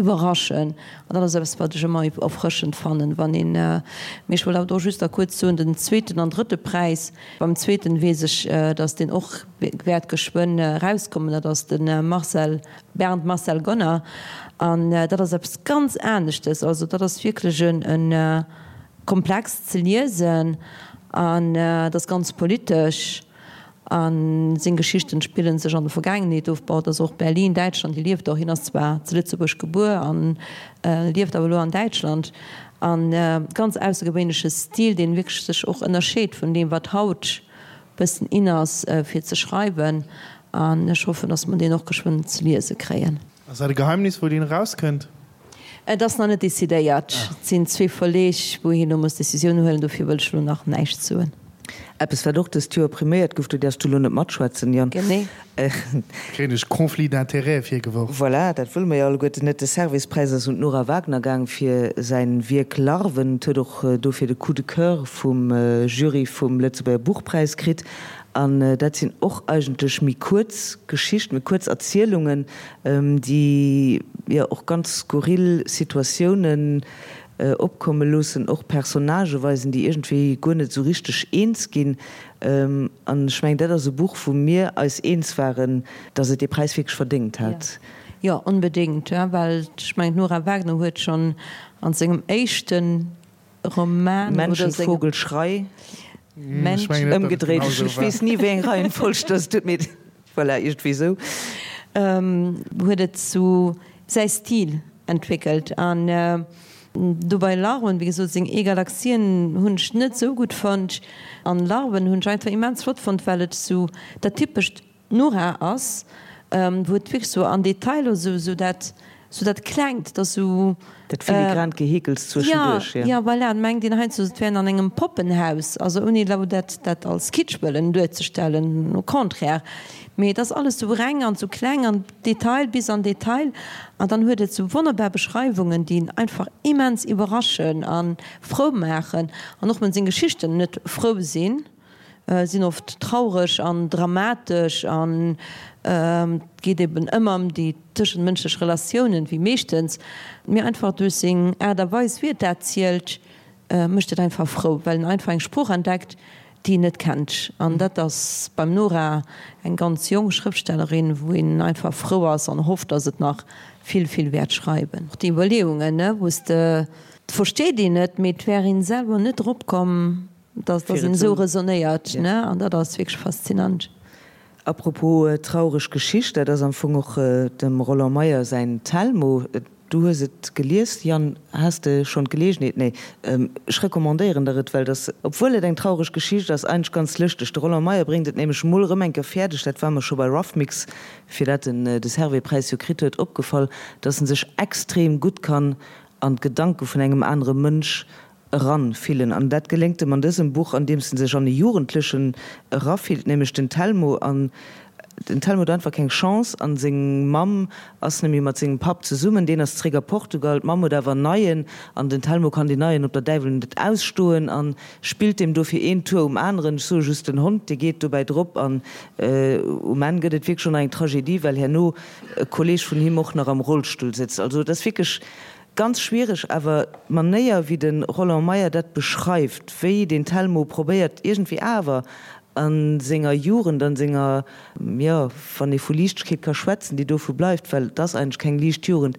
iwwerraschen an dat ass eppes, wat ech ëmmer erfrëschend fannen, wann een, mee ech wollt awer do just da kuerz soen, den zweeten an drëtte Präis, beim zweeten weess ech, datt deen och wäert geschwënn erauskommen, dat ass de Marcel Bernd Marcel Gonner, An dat ass eppes ganz aneschtes. Also dat ass wierklech e komplex ze liesen an dat ass ganz politesch a seng Geschichten spillen sech an der Vergaangenheet of. Bon, et ass och Berlin, Däitschland, hie lieft och, hien ass zwar zu Lëtzebuerg gebuer an lieft awer elo an Däitschland. An ganz aussergewéinleche Stil, deen wierklech sech och ënnerscheet vun deem wat haut bëssen in ass fir ze schreiwen an ech hoffen, dass mer deen och geschwënn ze liese kréien. Ass dat e Geheimnis wou deen erauskënnt? Et ass nach net decidéiert. Et sinn zwee Verleeg wou hien elo muss Decisioun huelen, dofir wëll ech elo nach näischt soen. Eppes wat och dëst Joer priméiert gouf, do däerfs du elo net matschwätzen, Yann. Genee. Kréien ech Conflit d'intérêts virgeworf? Voilà, dat wëlle mer jo alleguerten net. De Servais-Präis ass un d'Nora Wagner gaang fir säin Wierk Larven. Et huet och dofir de Coup de coeur vum Jury vum Lëtzebuerger Buchpräis kritt. An dat sinn och eigentlech méi kuerz Geschichten, méi kuerz Erzielungen, déi jo och ganz skurril Situatiounen opkomme loossen, och Personnagë weisen, déi iergendwéi guer net esou richteg eens ginn. An ech mengen, dat ass e Buch, wou mir eis eens waren, datt et dee Präis wierklech verdéngt hat. Jo, onbedéngt, well ech mengen, d'Nora Wagner huet schonn a sengem éischte Roman oder sengem. Menschen, Vogel, Schrei. Mensch. Ëmgedréit, ech weess ni, wéi eng Reihenfolg dat ass, mee voilà, iergendwéi esou. Huet et sou säi Stil entwéckelt an do bei Larven, wéi gesot, seng E-Galaxien hunn ech net sou gutt fonnt an Larven hunn ech einfach immens flott fonnt, well et sou dat typescht Nora ass, wou et wierklech sou an Detailer sou sou dat sou dat Klengt, dat sou. Dat filigrant Geheekels zwëschenduerch, jo. Jo, voilà, et mengt een heiansdo, et wär een an engem Poppenhaus, also ouni elo dat dat als Kitsch wëllen duerzestellen, au contraire, mee et ass alles sou reng an sou kleng an Detail bis an Detail an dann huet et sou wonnerbar Beschreiwungen, déi een einfach immens iwwerraschen a frou maachen an och wann seng Geschichten net frou sinn. Sinn oft traureg an dramatesch an et geet eben ëmmer ëm déi tëschentmënschlech Relatiounen, wéi meeschtens. Mee einfach duerch seng Aart a Weis, wéi et dat zielt, mécht et einfach frou, well en einfach eng Sprooch entdeckt, déi een net kennt. An dat ass beim Nora, eng ganz jonk Schrëftstellerin, wou een einfach frou ass an hofft, datt et nach vill, vill wäert schreiwen. Och déi Iwwerleeungen, wou s de, et versteet een et, mee et wär een selwer net drop komm, Dass dass een esou resonnéiert, ne? An dat ass wierklech faszinant. Apropos traureg Geschicht, dat ass am Fong och dem Roland Meyer säin Telmo. Du hues et gelies, Yann, has de schonn d'Geleegenheet? Nee, ech recommandéieren der et, well et ass, obwuel et eng traureg Geschicht ass, eigentlech ganz lëschteg. De Roland Meyer bréngt et nämlech mol erëm eng Kéier fäerdeg, dat war mer scho bei Roughmix, fir dat en de Servais-Präis jo kritt huet, opgefall, dass en sech extrem gutt kann an d'Gedanke vun engem anere Mënsch eran fillen. An dat geléngt em an dësem Buch, andeems en sech an e Jugendlechen erafillt, nämlech den Telmo. An den Telmo huet einfach keng Chance an seng Mamm ass nemmi mat sengem Papp zesummen, deen ass zréck a Portugal, d'Mamm huet awer en neien an den Telmo kann deen neien op der Däiwel net ausstoen an spillt deem dofir een Tour um aneren. Ech soe just den Hond, dee geet dobäi drop an um Enn gëtt et wierklech och nach eng Tragedie, well herno e Kolleg vun him och nach am Rollstull sëtzt. Also et ass wierklech Ganz schwiereg, awer d'Manéier wéi de Roland Meyer dat beschreift, wéi den Telmo probéiert iergendwéi awer a senger Jugend, an senger, jo, wann ee vu Liichtegkeet ka schwätzen, déi dovu bleift, well et ass eigentlech keng liicht Jugend,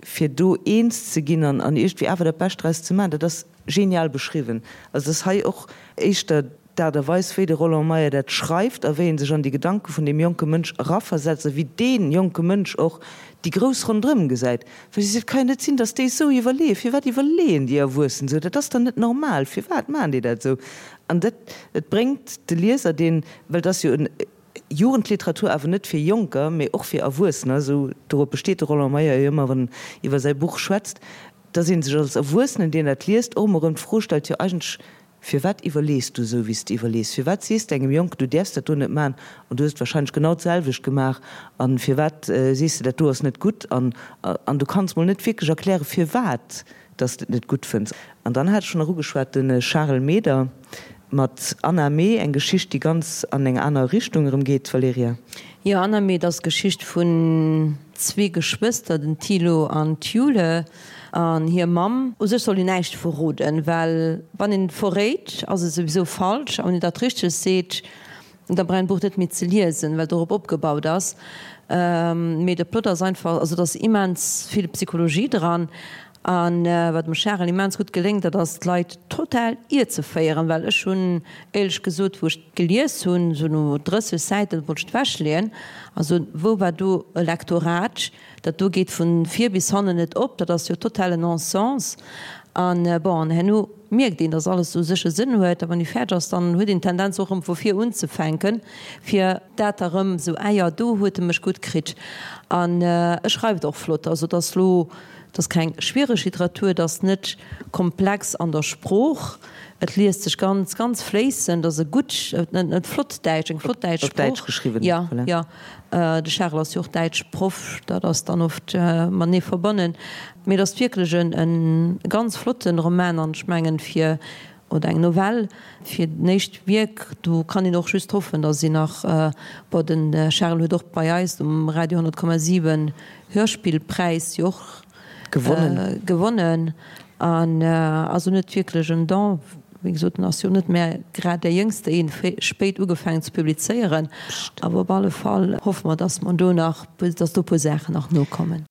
fir do eens ze ginn an iergendwéi awer dat Bescht draus ze maachen, dat ass genial beschriwwen. Also et ass hei och éischter. d'Aart a Weis, wéi de Roland Meyer dat schreift a wéi en sech an déi Gedanke vun deem jonke Mënsch eraversetzt a wéi dee jonke Mënsch och déi Grouss ronderëm gesäit. Well si seet, et ka jo net sinn, datt déi esou iwwerleeën. Firwat iwwerleeën déi Erwuessen esou? Dat ass dann net normal. Firwat maachen déi dat esou? An dat, et bréngt de Lieser, deen, well et ass jo en Jugendliteratur, awer net fir Jonker, mee och fir Erwuessener, esou dorop besteet de Roland Meyer jo ëmmer, wann en iwwer säi Buch schwätzt, datt ee sech als Erwuessenen, deen dat liest, och emol erëm d'Fro stellt, jo eigentlech, Firwat iwwerlees du esou, wéi s de iwwerlees? Firwat sees de engem Jonken, du däerfs dat do net maachen, an du hues et warscheinlech genau d'selwecht gemaach, a firwat sees de, dat do ass net gutt, an an du kanns mol net wierklech erklären, firwat dass de et net gutt fënns. An dann hat ech schonn nach ugeschwat, de Charel Meder mat Anna Mee, eng Geschicht, déi ganz an eng aner Richtung erëm geet, Valerija. Jo, Anna Mee, dat ass d'Geschicht vun zwee Geschwëster, den Thilo an d'Jule. An hir Mamm. U sech soll een näischt verroden, well wann een et verréit, ass et souwisou falsch. A wann een dat Richtegt seet, da brauch een d'Buch net méi ze liesen, well dorop opgebaut ass. Mee de Plot ass einfach, also et ass immens vill Psychologie dran. A wat dem Charel immens gutt geléngt, dat ass d'Leit total ierzeféieren, well ech hunn éierlech gesot, wou ech gelies hunn, esou no 30 Säiten, wollt ech et ewechleeën. Also wou war do e Lektorat? Dat do geet vun vir bis hannen net op, dat ass jo totale Non-Sens. An bon, an herno mierkt een, dass alles u sech e Sënn huet. A wann ee fäerdeg ass, dann huet een d'Tendenz och erëm vu vir unzefänken, fir dat da erëm esou, ah jo, do huet e mech gutt kritt. An e schreift och flott. Also et ass lo, et ass keng schwiereg Literatur, et ass net komplex an der Sprooch, et liest sech ganz, ganz fléissend, et ass e gutt, net flott Däitsch, eng flott däitsch Sprooch. Op Däitsch geschriwwen, Jo, jo. De Charel ass jo och Däitschproff, dat ass dann oft matenee verbonnen. Mee et ass wierklech e ganz flotten Roman an ech mengen fir, oder eng Novell, fir den éischt Wierk, do kann een och just hoffen, datt een nach, bon de Charel huet och bei eis um Radio 100,7 Hörspillpräis jo och Gewonnen. Gewonnen an ass en huet wierklech en Don. Wéi gesot, en ass jo net mä grad dee Jéngste, een spéit ugefaangen ze publizéieren. Awer op alle Fall hoffe mer, dass mer do nach, dass do e puer Saachen nach nokommen.